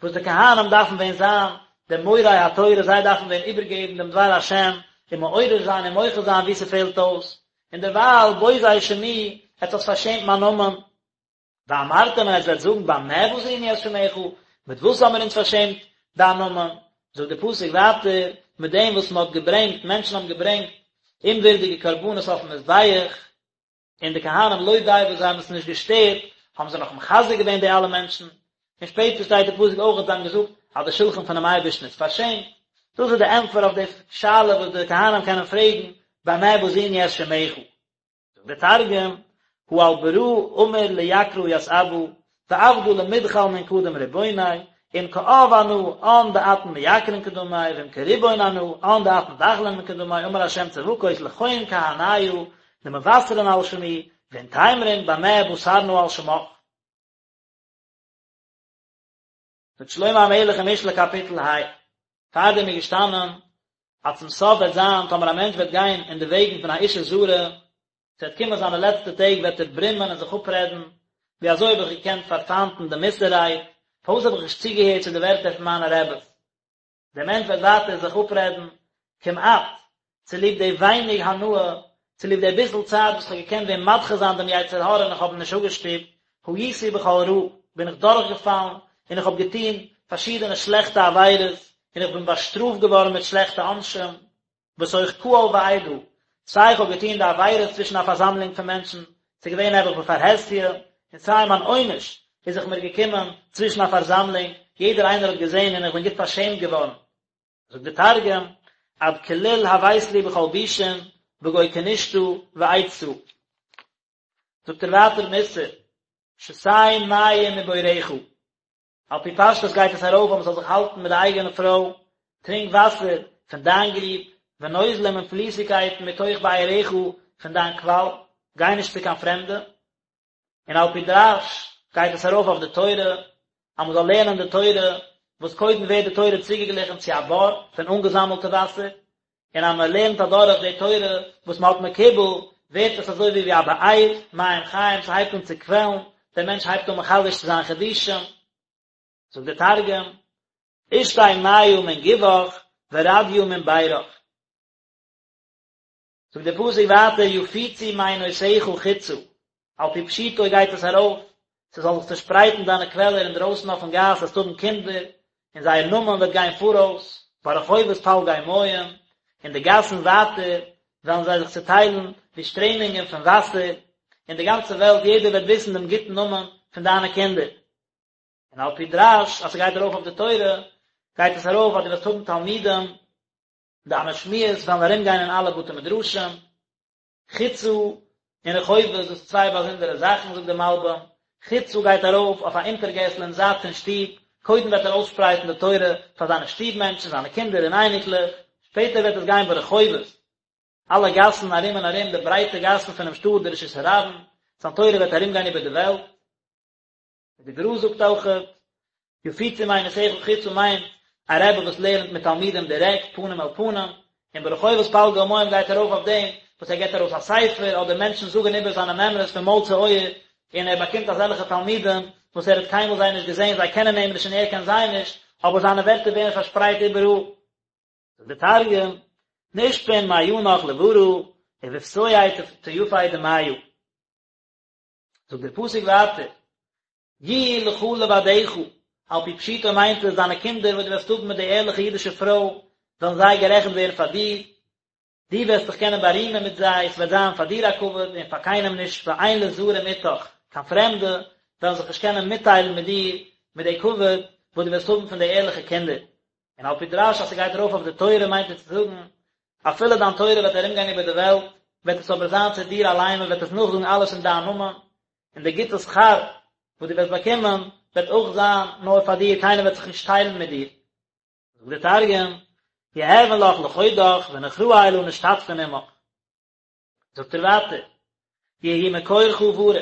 וואס די כהנים דארפן ווען זיין די מורי התורה, זיי דארפן ווען איבערגעבן דעם דבר השם, און מעורר זיין און מוחה זיין וואו ס'פעלט אויס, און דערווייל בוזי שמי, עטס האטס פארשעמט מיין נאמען. ואמרתם און עטס וועט זאגן במה בזינו את שמך, מיט וואס האבן מיר אונז פארשעמט דיין נאמען? זאגט דער פסוק ווייטער, מיט דעם וואס מען האט געברענגט, מענטשן האבן געברענגט אומווירדיגע קרבנות אויפן מזבח, און די כהנים לא די וואס זיי האבן עס נישט געשטערט, האבן זיי נאך מחזק געווען די אלע מענטשן, און שפעטער שטייט די פסוק אויך אז זיי האבן געזאגט אז די שלחן פונעם אייבערשטן איז פארשעמט, דאס איז די ענטפער אויף די שאלה וואס די כהנים קענען פרעגן במה בזינו את שמך. זאגט דער תרגום, הא על ברא אמר ליקרא ית אבא, ועבדא למדחל מן קדם רבוניה, אם כאב אנא אן דאתון מייקרין קדמי, ואם כריבון אנא אן דאתון דחלין מן קדמי, אמר ה' צבקות לכון כהניא דמבשרין על שמי, ואין תימרון במה בסרנא על שמך. זאגט שלמה המלך אין משלי קאפיטל ה, פארדעם איז געשטאנען אז צום סוף וועט זיין טאמער א מענטש וועט גיין אין די וועגן פון א אשה זרה, ס'וועט קומען זיינע לעצטע טעג וועט ער ברומען און זיך אפרעדן, ווי אזוי האב איך געקענט פארפיינטן די מוסר רייד, פארוואס האב איך נישט צוגעהערט צו די ווערטער פון מיינע רעבעס. דער מענטש וועט ווייטער זיך אפרעדן, כמעט, צוליב די ווייניג הנאה, צוליב די ביסל צייט וואס כ'האב געקענט ווען מדחה זיין דעם יצר הרע און איך האב אים נישט אפגעשטופט, הייתי בכל רע, בין איך דורכגעפאלן און איך האב געטון פארשידענע שלעכטע עבירות און איך בין באשטראפט געווארן מיט שלעכטע עונשים. בתוך קהל ועדה, סיי איך האב געטון די עבירות צווישן א פארזאמלונג פון מענטשן, ס'איז געווען נעבעך בפרהסיא, און סיי מיין עונש איז זיך מיר געקומען צווישן א פארזאמלונג, יעדער איינער האט געזען און איך בין גוט פארשעמט געווארן. זאגט דער תרגום, עד כליל הוית לי בכל בישין, בגו כנישתא ועדתא. זאגט ער ווייטער מוסר, שתה מים מבורך. על פי פשטות גייט עס ארויף אז מען זאל זיך האלטן מיט די אייגענע פרוי, טרינק וואסער פון דיין גריב, ונוזלים און פליסיגקייטן מתוך בארך פון דיין קוואל, גיי נישט צו קיין פרעמדע. און על פי דרש גייט עס ארויף אויף די תורה, אז מען זאל לערנען די תורה, וואס קודם ווערט די תורה צוגעגליכן צו א בור פון אנגעזאמלטע וואסער, און אז מען לערנט אדורך די תורה וואס מען האט מקובל, ווערט עס אזוי ווי ווי א באר, מים חיים, ס'הייבט אן צו קוועלן, דער מענטש הייבט אן מחדש צו זיין חידושים. זאגט דער תרגום, אשתי מיא מן גובך ורדיא מן בירך. זאגט דער פסוק ווייטער יפוצו מעינותיך חוצה, על פי פשוטו גייט עס ארויף, ס'זאל זיך צושפרייטן דיינע קוועלער אינדרויסן אויפן גאס, וועסט האבן קינדער, און זייער נאמען וועט גיין פאראויס, ברחובות פלגי מים, אין די גאסן ווייטער וועלן זיי זיך צוטיילן ווי שטרעמונגען פון וואסער, אין די גאנצע וועלט יעדער וועט וויסן דעם גוטן נאמען פון דיינע קינדער. און על פי דרש אז ס'גייט ארויף אויף די תורה, גייט עס ארויף אז דו וועסט האבן תלמידים, דיינע שמועות וועלן ארומגיין אין אלע בתי מדרשים, חוצה און רחובות, דאס איז צוויי באזונדערע זאכן, זאגט דער מלבים, חוצה גייט ארויף אויף א אונטערגעסל אין זייט פון שטוב, קודם וועט ער אויסשפרייטן די תורה פאר זיינע שטוב מענטשן, זיינע קינדער און אייניקלעך, שפעטער וועט עס גיין ברחובות, אלע גאסן ארום און ארום די ברייטע גאסן פונעם שטאט, די רשות הרבים, זיין תורה וועט ארומגיין איבער די וועלט. די גר"א זאגט אויכעט, יפוצו מעינותיך חוצה מיינט א רבי וואס לערנט מיט תלמידים דירעקט פנים אל פנים, און ברחובות פלגי מים גייט ארויף אויף דעם וואס ער געבט ארויס א ספר אדער מענטשן זאגן איבער זיינע מימרות פון מויל צו אויער, און ער באקומט אזעלכע תלמידים וואס ער האט קיינמאל זיי נישט געזען, זיי קענען אים נישט און ער קען זיי נישט, אבער זיינע ווערטער ווערן פארשפרייט איבעראל. זאגט דער תרגום, נשפון מעינך לברא, ובפתויי טופי דמיא. זאגט דער פסוק ווייטער, יהיו לך לבדך, על פי פשוטו מיינט עס דיינע קינדער וואס דו וועסט האבן מיט די ערליכע אידישע פרוי, וועלן זיי גערעכנט ווערן פאר דיר, דו וועסט דיך קענען בארימען מיט זיי, עס וועט זיין פאר דיר א כבוד און פאר קיינעם נישט, ואין לזרים איתך, קיין פרעמדע וועלן זיך נישט קענען מיטטיילן מיט דיר, מיט די כבוד וואס דו וועסט האבן פון די ערליכע קינדער. און על פי דרש אז ס'גייט ארויף אויף די תורה מיינט עס צו זאגן, אפילו דיין תורה וועט ארומגיין איבער די וועלט, וועט עס אבער זיין צו דיר אליין, מען וועט עס נאכזאגן אלעס אין דיין נאמען, און די גוטע שכר וואס דו וועסט באקומען וועט אויך זיין נאר פאר דיר, קיינער וועט זיך נישט טיילן מיט דיר. זאגט דער תרגום, יהוון לך לחודך ונוכראי לא נשתתפין עמך. זאגט ער ווייטער, יהי מקורך ברוך,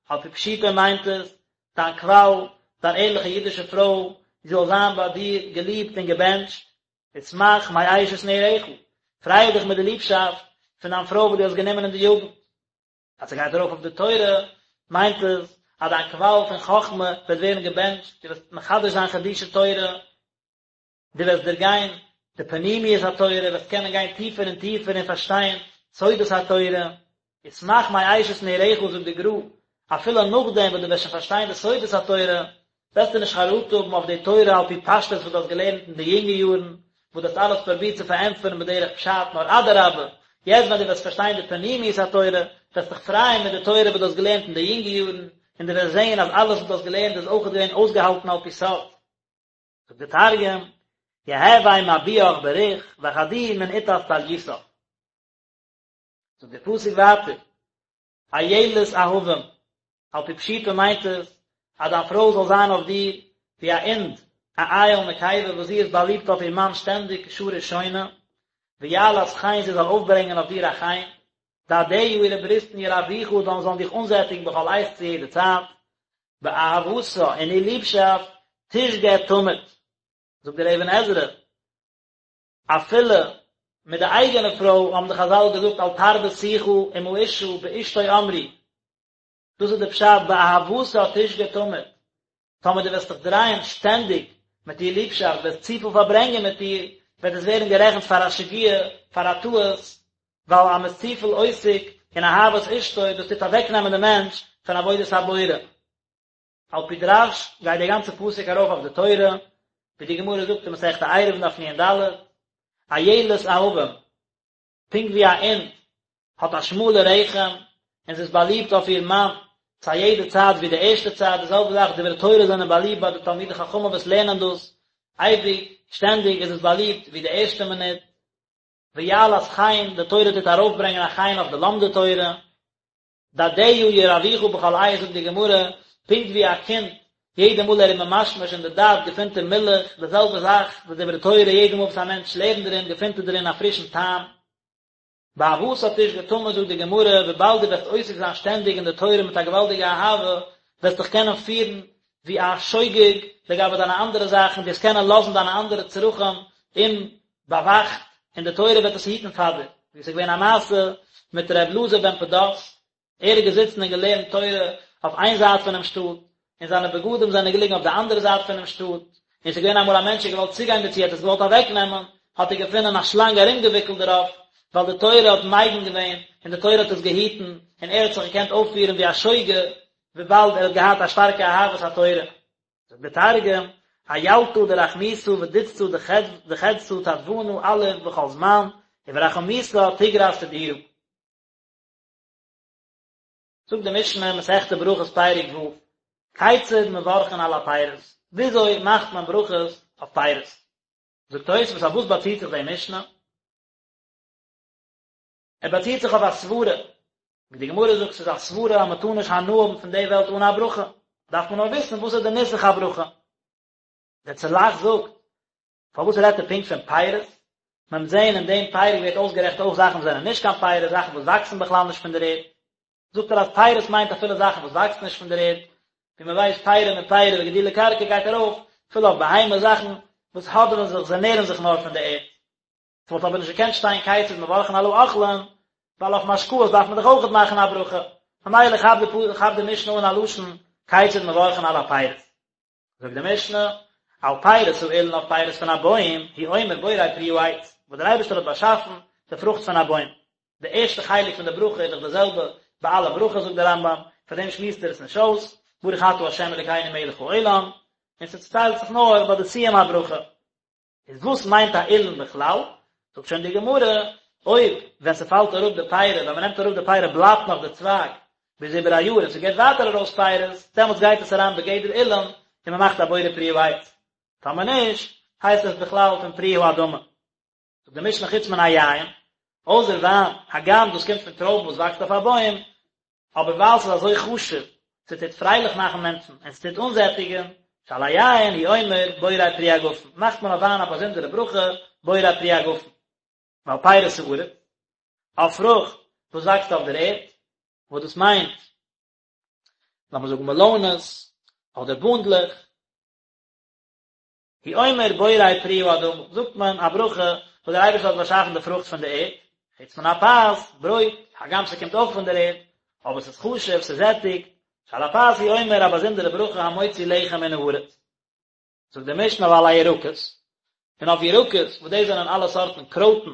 על פי פשוטו מיינט עס, דיין קוואל, דיין ערליכע אידישע פרוי, זי זאל זיין ביי דיר געליבט און געבענטשט, ושמח מאשת נעוריך, פריי דיך מיט די ליבשאפט פון דיין פרוי וואס דו האסט גענומען אין די יוגנט. אז ס'גייט ארויף אויף די תורה, מיינט עס אז דיין קוואל פון חכמה וועט ווערן געבענטשט, דו וועסט מחדש זיין חידושי תורה, דו וועסט דערגיין די פנימיות התורה, וועסט קענען גיין טיפער און טיפער און פארשטיין סודות התורה. ושמח מאשת נעוריך זאגט די גר"א, אפילו נאכדעם וואס דו וועסט שוין פארשטיין די סודות התורה, וועסטו נישט חרטה האבן אויף די תורה על פי פשטות וואס דו האסט געלערנט אין די יונגע יארן, וואס דו האסט אלעס פרובירט צו פארענטפערן בדרך פשט, נאר אדרבה, יעצט ווען דו וועסט פארשטיין די פנימיות התורה, וועסט דיך פרייען מיט די תורה וואס דו האסט געלערנט אין די יונגע יארן, און דו וועסט זען אז אלעס וואס דו האסט געלערנט איז אויך געווען אויסגעהאלטן על פי סוד. זאגט די תרגום, יהוי מבועך בריך, וחדי מן איתת טליתך. זאגט דער פסוק ווייטער, אילת אהבים, על פי פשוטו מיינט עס אז דיין פרוי זאל זיין אויף דיר ווי א אינד, א איל נקבה וואס זי איז באליבט אויף איר מאן שטענדיג כשעה ראשונה, ויעלת חן זי זאל אויפברענגען אויף דיר א חן, דדיה אירע בריסטן ירווך זאלן זאלן דיך אנזעטיגן בכל עת צו יעדע צייט, באהבתה אין איר ליבשאפט תשגה תמיד, זאגט דער אבן עזרא, אפילו מיט די אייגענע פרוי האבן די חזל געזאגט אל תרבה שיחה עם האשה באשתו אמרו, דאס איז די פשט באהבתה תשגה תמיד, טאמער דו וועסט דיך דרייען שטענדיג מיט איר ליבשאפט, וועסט צופיל פארברענגען מיט איר, וועט עס ווערן גערעכנט פאר א שגיאה, פאר א טעות, ווייל אז מען איז צופיל עוסק אין אהבת אשתו, דאס טוט אוועקנעמען די מענטש פון עבודת הבורא. על פי דרש גייט דער גאנצער פסוק ארויף אויף די תורה, ווי די גמרא זאגט אין מסכת עירובין דף נ"ד, אילת אהבים, פונקט ווי א אינד האט א שמאלע רחם און זי איז באליבט אויף איר מאן צו א יעדע צייט ווי די ערשטע צייט, די זעלבע זאך דברי תורה זענען באליבט ביי די תלמידי חכמים וואס לערנען דאס אייביג, שטענדיג איז עס באליבט ווי די ערשטע מינוט. ויעלת חן, די תורה טוט ארויפברענגען א חן אויף די לומדי תורה. דדיה ירווך בכל עת זאגט די גמרא, פונקט ווי א קינד יעדע מאל ער איז ממשמש אין די דד געפינט ער מילך, די זעלבע זאך די דברי תורה יעדע מאל וואס א מענטש לערנט דערין געפינט ער דערין א פרישן טעם. באהבתה תשגה תמיד זאגט די גמרא, וויבאלד דו וועסט עוסק זיין שטענדיג אין די תורה מיט א געוואלדיגע אהבה, וועסט דיך קענען פירן ווי א שוגג לגבי דיינע אנדערע זאכן, דו וועסט קענען לאזן דיינע אנדערע צרכים אומבאוואכט, און די תורה וועט עס היטן פאר דיר, ווי עס איז געווען א מעשה מיט ר' אלעזר בן פדת, ער איז געזיצן און געלערנט תורה אויף איין זייט פונעם שטאט, און זיינע בגדים זענען געליגן אויף די אנדערע זייט פונעם שטאט, און עס איז געווען אמאל א מענטש האט געוואלט צוגיין דערצו, ער האט עס געוואלט אוועקנעמען, האט ער געפונען א שלאנג ארומגעוויקלט דערויף, ווייל די תורה האט מגין געווען, און די תורה האט עס געהיטן, און ער האט זיך געקענט אויפפירן ווי א שוגג, וויבאלד ער האט געהאט א שטארקע אהבת התורה. זאגט דער תרגום, אילתא דרחמיתא ודתתא דחדתא תדבנא אליף בכל זמן, וברחמיתא תגרס תדירא. זאגט די משנה, מסכת ברכות פרק ו', כיצד מברכין על הפירות, וויאזוי מאכט מען ברכות אויף פירות? זאגט תוספות, אויף וואס באציט זיך די משנה? ער באציט זיך אויף א סברה, ווי די גמרא זאגט ס'איז א סברה אז מ'טאר נישט הנאה האבן פון די וועלט אן א ברכה, דארף מען נאר וויסן וואס איז די נוסח הברכה. דער צל"ח זאגט, פארוואס רעדט ער פונקט פון פירות? מען וועט זען אין דעם פרק ווערט אויסגערעכנט אויך זאכן וואס זענען נישט קיין פירות, זאכן וואס וואקסן בכלל נישט פון דער ערד. זאגט ער אז פירות מיינט אפילו זאכן וואס וואקסן נישט פון דער ערד, ווי מען ווייסט פירי מפירי וגידולי קרקע גייט ארויף אפילו אויף בהמה זאכן וואס האדעווען זיך, זיי נערן זיך נאר פון דער ערד. ס'וואלט אבער נישט געקענט שטיין כיצד מברכין על האוכלין, ווייל אויף משקאות דארף מען דאך אויכעט מאכן א ברכה, ממילא כאפט די משנה אן א לשון כיצד מברכין על הפירות. זאגט די משנה, על פירות האילן אויף פירות פון א בוים, הוא אומר בורא פרי העץ, וואס דער אייבערשטער האט באשאפן די פרוכט פון א בוים. די ערשטע חלק פון די ברכה איז דאך די זעלבע ביי אלע ברכות זאגט דער רמב"ם, פאר דעם שמועסט ער עס נישט אויס, ברוך אתה ה' אלוקינו מלך העולם, און ס'צוטיילט זיך נאר ביי די סיום הברכה. איז וואס מיינט א אילן בכלל? זאגט שוין די גמרא, אויב ווען ס'פאלט אראפ די פירי, ווען מ'נעמט אראפ די פירי בלייבט נאך די צווייג ביז איבער א יאר און ס'געבט ווייטער ארויס פירות, דעמאלטס גייט עס אריין בגדר אילן און מ'מאכט א בורא פרי העץ. טאמער נישט, הייסט עס בכלל פון פרי האדמה. זאגט די משנה חוץ מן היין, אויסער וויין, הגם דאס קומט פון טרויבן וואס וואקסט אויף א בוים, אבער ווייל ס'איז אזוי חשוב, ס'טוט פרייליך מאכן מענטשן און ס'טוט אנזעטיגן, שעל היין הוא אומר בורא פרי הגפן, מאכט מען אויף וויין א באזונדערע ברכה בורא פרי הגפן. ועל פירות הארץ, אויף פרוכט וואס וואקסט אויף דער ערד, וואס דאס מיינט, לאמיר זאגן מעלאנעס, אדער בונדלעך, הוא אומר בורא פרי האדמה, זאגט מען א ברכה וואס דער אייבערשטער האט באשאפן די פרוכט פון די ערד, חוץ מן הפת, ברויט, הגם ס'קומט אויך פון דער ערד, אבער ס'איז חשוב, ס'זעטיגט, שעל הפת הוא אומר א באזונדערע ברכה המוציא לחם מן הארץ. זאגט די משנה ועל הירקות, און אויף ירקות, וואס דאס זענען אלע סארטן קרויטן,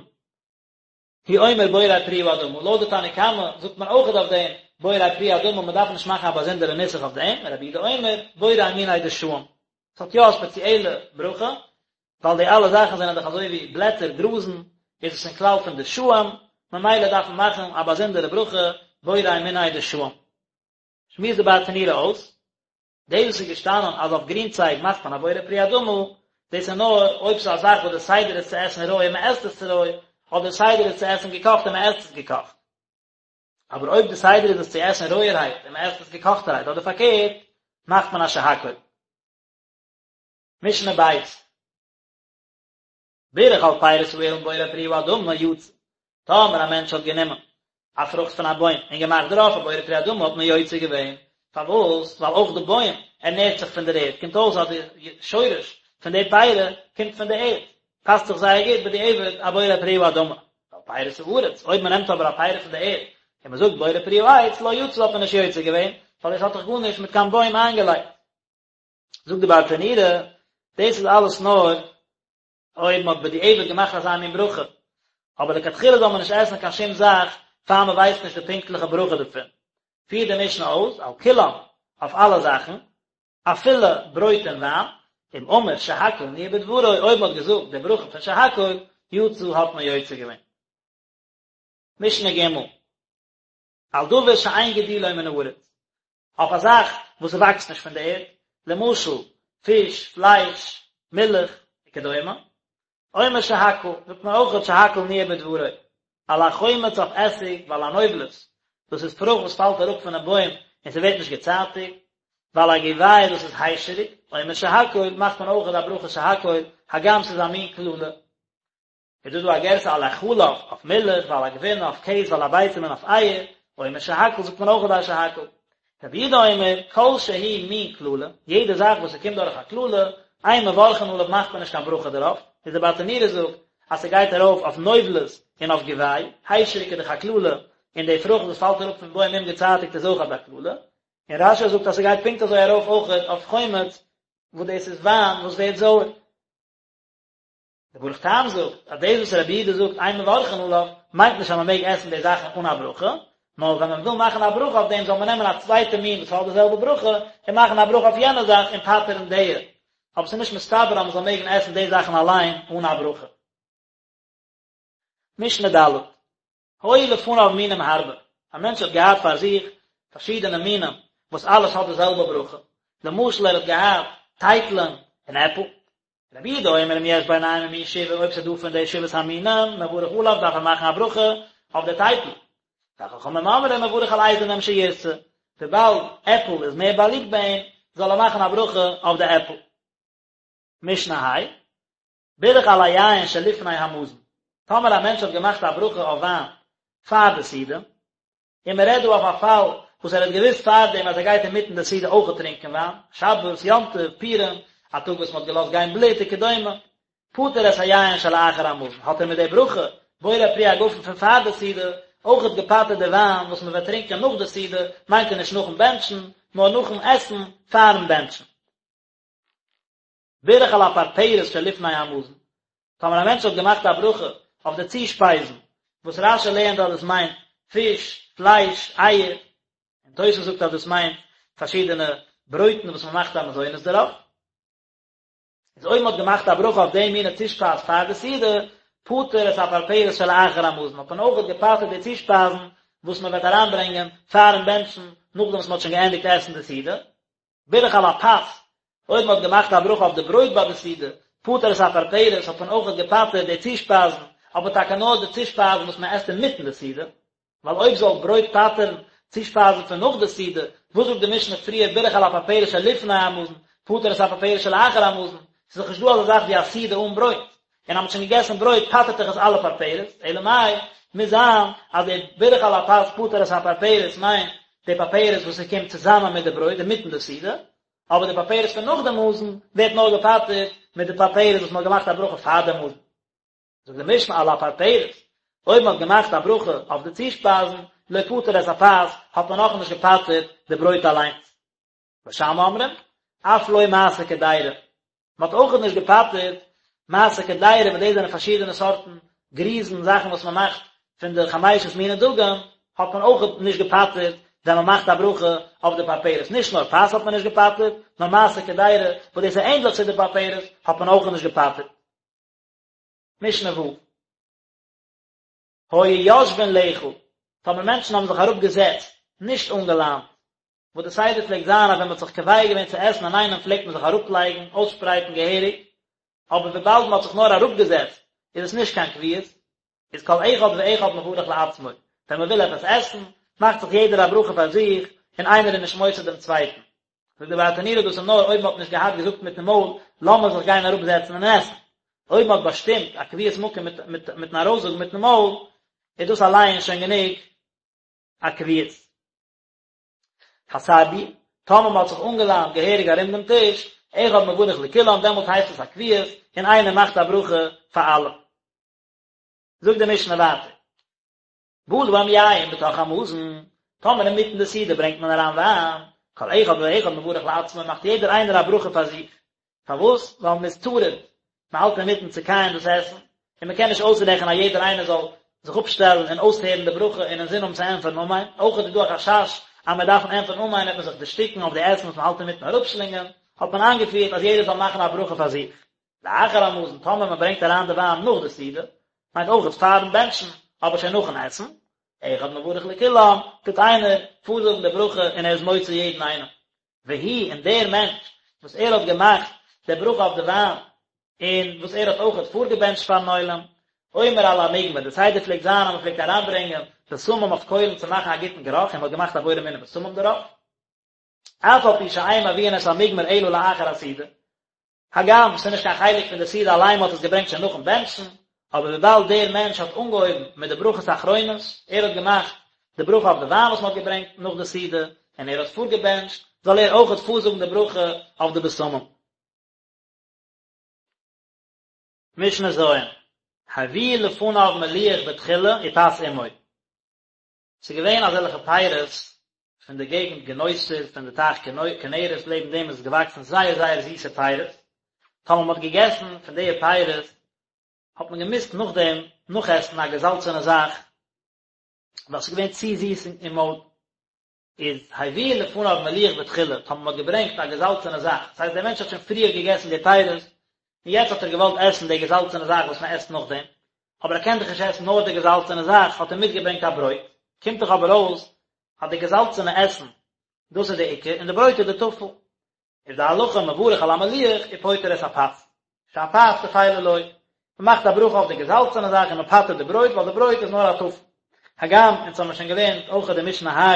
הוא אומר בורא פרי האדמה, לויט די תנא קמא זאגט מען אויכעט אויף דעם בורא פרי האדמה, מען דארף נישט מאכן א באזונדערע נוסח אויף דעם, רבי יהודה אומר בורא מיני דשאים, עס האט יא א ספעציעלע ברכה, ווייל די אלע זאכן זענען דאך אזוי ווי בלעטער, גראזן, איז עס אין כלל פון דשאים, ממילא דארף מען מאכן א באזונדערע ברכה בורא מיני דשאים. שמועסט די ברטנורא אויס, דאס וואס איז געשטאנען אז אויף גרינצייג מאכט מען א בורא פרי האדמה, דאס איז נאר אויב ס'איז א זאך וואס די סדר איז צו עסן רוי און מ'עסט עס רוי, אדער די סדר איז צו עסן געקאכט און מ'עסט עס געקאכט. אבער אויב די סדר איז עס צו עסן רויערהייט און מ'עסט עס געקאכטערהייט אדער פארקערט, מאכט מען א שהכל. משנה ב'. בירך על פירות האילן בורא פרי האדמה יצא. טאמער א מענטש האט גענומען א פרוכט פון א בוים און געמאכט דערויף א בורא פרי האדמה האט מען יוצא געווען. פארוואס? ווייל אויך די בוים ערנערט זיך פון דער ערד, קומט אויס אז די שורש פון די פירה קומט פון די ערד, פאסט זיך זייער גוט בדיעבד א בורא פרי האדמה. ועל פירות הארץ, אויב מען נעמט אבער א פירה פון די ערד און מען זאגט בורא פרי העץ לא יצא האט מען נישט יוצא געווען, ווייל דאס האט דאך גארנישט מיט קיין בוים איינגעלייגט. זאגט די ברטנורא, דאס איז אלעס נאר אויב מען האט בדיעבד געמאכט אזא מין ברכה, אבער לכתחילה זאל מען נישט עסן קיין שום זאך פאר מען ווייסט נישט די פונקטליכע ברכה דערפון. פירט די משנה אויס, על כולם, אויף אלע זאכן, אפילו ברויט און וויין, אם אמר שהכל נהיה בדברו, אויב מען האט געזאגט די ברכה פון שהכל, יצא האט מען יוצא געווען. משנה ג' על דבר שאין גידולו מן הארץ, אויף א זאך וואס ס'וואקסט נישט פון די ערד, למשל, פיש, פלייש, מילך, וכדומה, אומר שהכל, זאגט מען אויכעט שהכל נהיה בדברו, על החומץ אויף עסיג ועל הנובלות, דאס איז פרוכט וואס פאלט אראפ פונעם בוים און ס'ווערט נישט געצייטיגט, ועל הגובאי דאס איז היישעריק, אומר שהכל, מאכט מען אויכעט א ברכה שהכל, הגם ס'איז א מין קללה. איז דא דא א גירסא על החלב אויף מילך ועל הגבינה אויף קעז ועל הביצים און אויף אייער, אומר שהכל זאגט מען אויך א שהכל. רבי יהודה אומר, כל שהוא מין קללה, יעדע זאך וואס ס'קומט דורך א קללה, אין מברכין עליו מאכט מען נישט קיין ברכה דערויף, איז די ברטנורא זאגט אז ס'גייט ארויף אויף נובלות און אויף גובאי, היישעריק איז דאך א קללה, און די פרוכט וואס פאלט אראפ פון בוים אומגעצייטיגט איז אויך אזא קללה, און רש"י זאגט אז ס'גייט פונקט אזוי ארויף אויכעט אויף חומץ וואס דאס איז וויין וואס ווערט זויער. דער ברוך טעם זאגט אז דאס וואס רבי יהודה זאגט אין מברכין עליו מיינט נישט אז מען מעג עסן די זאכן אן א ברכה, נאר ווען מען וויל מאכן א ברכה אויף דעם זאל מען נעמען א צווייטע מין וואס האט די זעלבע ברכה און מאכן א ברכה אויף יענע זאך און פטר'ן די, אבער ס'איז נישט מסתבר אז מען זאל מעגן עסן די זאכן אליין אן א ברכה. משנה ד'. היו לפניו מינים הרבה, א מענטש האט געהאט פאר זיך פארשידענע מינים וואס אלעס האט די זעלבע ברכה, למשל ער האט געהאט טייטלען און עפל, רבי יהודה אומר אם יש ביניהם ממין שבעה אויב ס'איז דא פון די שבעת המינים מברך עליו דארף ער מאכן א ברכה אויף די טייטל, וחכמים אומרים מברך על איזה מהם שירצה, וויבאלד עפל איז מער באליבט ביי אים זאל ער מאכן א ברכה אויף די עפל. משנה ה'. בירך על היין שלפני המזון, טאמער א מענטש האט געמאכט א ברכה אויף וויין פאר די סעודה, און מען רעדט דא אויף א פאל וואס ער האט געוואוסט פארדעם אז ער גייט אינמיטן די סעודה אויכעט טרינקען וויין, שבת, יום טוב, פורים, א טאג וואס מען האט געלאזט גיין בלוט וכדומה, פטר את היין שלאחר המזון, האט ער מיט די ברכה, בורא פרי הגפן פון פאר די סעודה, אויכעט געפטר'ט די וויין וואס מען וועט טרינקען נאך די סעודה, מיינט ער נישט נאכן בענטשן, נאר נאכן עסן פארן בענטשן. בירך על הפרפרת שלפני המזון, טאמער א מענטש האט געמאכט א ברכה אויף די צושפייזן, וואס רש"י לערנט אז דאס מיינט פיש, פלייש, אייער, און תוס' זאגט אז דאס מיינט פארשידענע ברויטן וואס מען מאכט א מזונות דערויף, איז אויב מען האט געמאכט א ברכה אויף די מינע צושפייז פאר די סעודה, פטר את הפרפרת שלאחר המזון, האט מען אויכעט געפטר'ט די צושפייזן וואס מען וועט אריינברענגען פארן בענטשן, נאכדעם וואס מען האט שוין געענדיגט עסן די סעודה. בירך על הפת, אויב מען האט געמאכט א ברכה אויף די ברויט ביי די סעודה, פטר את הפרפרת, האט מען אויכעט געפטר'ט די צושפייזן, אבער טאקע נאר די צושפייזן וואס מען עסט אינמיטן די סעודה, ווייל אויב זאל ברויט פטר'ן צושפייזן פון נאך די סעודה, וואס זאגט די משנה פריער בירך על הפרפרת שלפני המזון, פטר. פטר את הפרפרת שלאחר המזון, ס'איז דאך נישט דא אזא זאך ווי א סעודה אן ברויט, און אז מ'האט שוין געגעסן ברויט פטר'ט דאך עס אלע פרפרת, אלא מאי, מוז זיין אז די בירך על הפת פטר את הפרפרת מיינט די פרפרת וואס ס'קומט צוזאמען מיט די ברויט אינמיטן די סעודה, אבער די פרפרת פון נאך די מזון ווערט נאר געפטר'ט מיט די פרפרת וואס מ'האט געמאכט א ברכה פאר די מזון. זאגט די משנה על הפרפרת, אויב מ'האט געמאכט א ברכה אויף די צושפייזן, לא פטר את הפת, האט מען נאכנישט געפטר'ט די ברויט אליינס. בית שמאי אומרים, אף לא מעשה קדירה. מען האט אויכעט נישט געפטר'ט מעשה קדירה, וואס דאס זענען פארשידענע סארטן גריזן, זאכן וואס מען מאכט פון די חמשת מיני דגן, האט מען אויכעט נישט געפטר'ט ווען מען מאכט א ברכה אויף די פרפרת. נישט נאר פת האט מען נישט געפטר'ט, נאר מעשה קדירה, וואס דאס איז ענדליך צו די פרפרת, האט מען אויכעט נישט געפטר'ט. משנה ו'. היו יושבין לאכול, טאמער מענטשן האבן זיך אראפגעזעצט, נישט אנגעליינט, וואס די סדר פלעגט זיין אז ווען מען האט זיך קובע געווען צו עסן אינאיינעם פלעגט מען זיך אראפלייגן, אויסשפרייטן געהעריג, אבער וויבאלד מען האט זיך נאר אראפגעזעצט איז עס נישט קיין קביעות, איז כל אחד ואחד מברך לעצמו, ווען מען וויל עפעס עסן, מאכט זיך יעדער א ברכה פאר זיך, און איינער איז נישט מוציא דעם צווייטן. זאגט דער ברטנורא דאס איז נאר אויב מען האט נישט געהאט געזאגט מיטן מויל לאמיר זיך גיין אראפזעצן און עסן. אויב מען האט באשטימט א קביעות מקום מיטן ארויסזאגן מיטן מויל, איז דאס אליין שוין גענוג א קביעות. הסרבו, טאמער מען האט זיך אנגעליינט געהעריג ארום דעם טיש, אחד מברך לכולם, דעמאלט הייסט עס א קביעות, און איינער מאכט א ברכה פאר אלע. זאגט די משנה ווייטער, בא להם יין בתוך המזון, טאמער אינמיטן די סעודה ברענגט מען אריין וויין, כל אחד ואחד מברך לעצמו, מאכט יעדער איינער א ברכה פאר זיך, פארוואס? ווייל מען איז טרוד, מען האלט אינמיטן צו קייען דאס עסן, און מען קען נישט אויסרעכענען אז יעדער איינער זאל זיך אפשטעלן און אויסהערן די ברכה און אינזין האבן צו ענטפערן אמן, אויך איז דא א חשש אז מ'וועט דארפן ענטפערן אמן וועט מען זיך דערשטיקן אויף די עסן וואס מען האלט אינמיטן אראפשלינגען, האט מען איינגעפירט אז יעדער זאל מאכן א ברכה פאר זיך. לאחר המזון, טאמער מען ברענגט אריין די וויין נאך די סעודה, מיינט אויך פארן בענטשן, אבער שוין נאכן עסן, אחד מברך לכולם, טוט איינער פארזאגן די ברכה און ער איז מוציא יעדן איינעם. והוא, און דער מענטש וואס ער האט געמאכט די ברכה אויף די וויין, און וואס ער האט אויכעט פארגעבענטשט פארן עולם, אומר על המוגמר, די סדר פלעגט זיין אז מען פלעגט אריינברענגען בשמים אויף קוילן צו מאכן א גוטן גערוך, און מען האט געמאכט א בורא מיני בשמים דערויף, אף על פי שאין מביאין את המוגמר אלא לאחר הסעודה, הגם ס'איז נישט קיין חלק פון די סעודה אליין, מ'האט עס געברענגט שוין נאכן בענטשן, אבער וויבאלד דער מענטש האט אנגעהויבן מיט די ברכות אחרונות, ער האט געמאכט די ברכה אויף די וויין וואס מ'האט געברענגט נאך די סעודה, און ער האט פארגעבענטשט, זאל ער אויכעט פארזאגן די ברכה אויף די בשמים. משנה ז', הביאו לפניו מליח בתחילה ופת עמו. ס'איז געווען אזעלכע פירות פון די געגנט גינוסר פון די טייך כנרת לעבן דעם איז געוואקסן זייער זייער זיסע פירות, טאמער מ'האט געגעסן פון די פירות האט מען געמוזט נאכדעם נאכעסן א געזאלצענע זאך ווייל ס'איז געווען צו זיס אין מויל. איז הביאו לפניו מליח בתחילה, טאמער מ'האט געברענגט א געזאלצענע זאך, דאס הייסט דער מענטש האט שוין פריער געגעסן די פירות, און יעצט האט ער געוואלט עסן די געזאלצענע זאך וואס מען עסט נאכדעם, אבער ער קען דאך נישט עסן נאר די געזאלצענע זאך, האט ער מיטגעברענגט א ברויט, קומט דאך אבער אויס אז די געזאלצענע עסן, דאס איז די עיקר, און די ברויט איז די טפל. איז די הלכה מברך על המליח ופוטר את הפת, שהפת טפלה לו, מען מאכט א ברכה אויף די געזאלצענע זאך און מען פטר'ט די ברויט ווייל די ברויט איז נאר א טפל. הגם אונז האמיר שוין געלערנט אויך אין די משנה ה'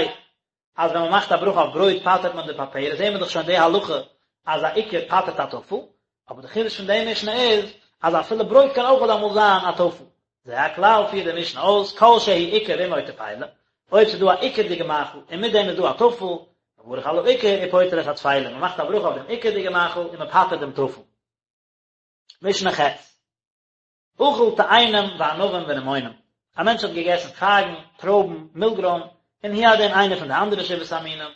אז ווען מען מאכט א ברכה אויף ברויט פטר'ט מען די פרפרת, זעהן מיר דאך שוין די הלכה אז א עיקר פטר'ט א טפל, אבער די חידוש פון די משנה איז אז אפילו ברויט קען אויך אמאל זיין א טפל. זה הכלל פירט די משנה אויס, כל שהוא עיקר ועמו טפלה, אויב ס'איז דא א עיקר'דיגע מאכל און מיט דעם איז דא א טפל, מברך על העיקר ופוטר את הטפלה, מען מאכט א ברכה אויף דעם עיקר'דיגע מאכל און מען פטר'ט דעם טפל. משנה ח'. אכל תאנים וענבים ורימונים, א מענטש האט געגעסן פייגן, טרויבן, מילגרוים, און הוא הדין איינער פון די אנדערע שבעת המינים,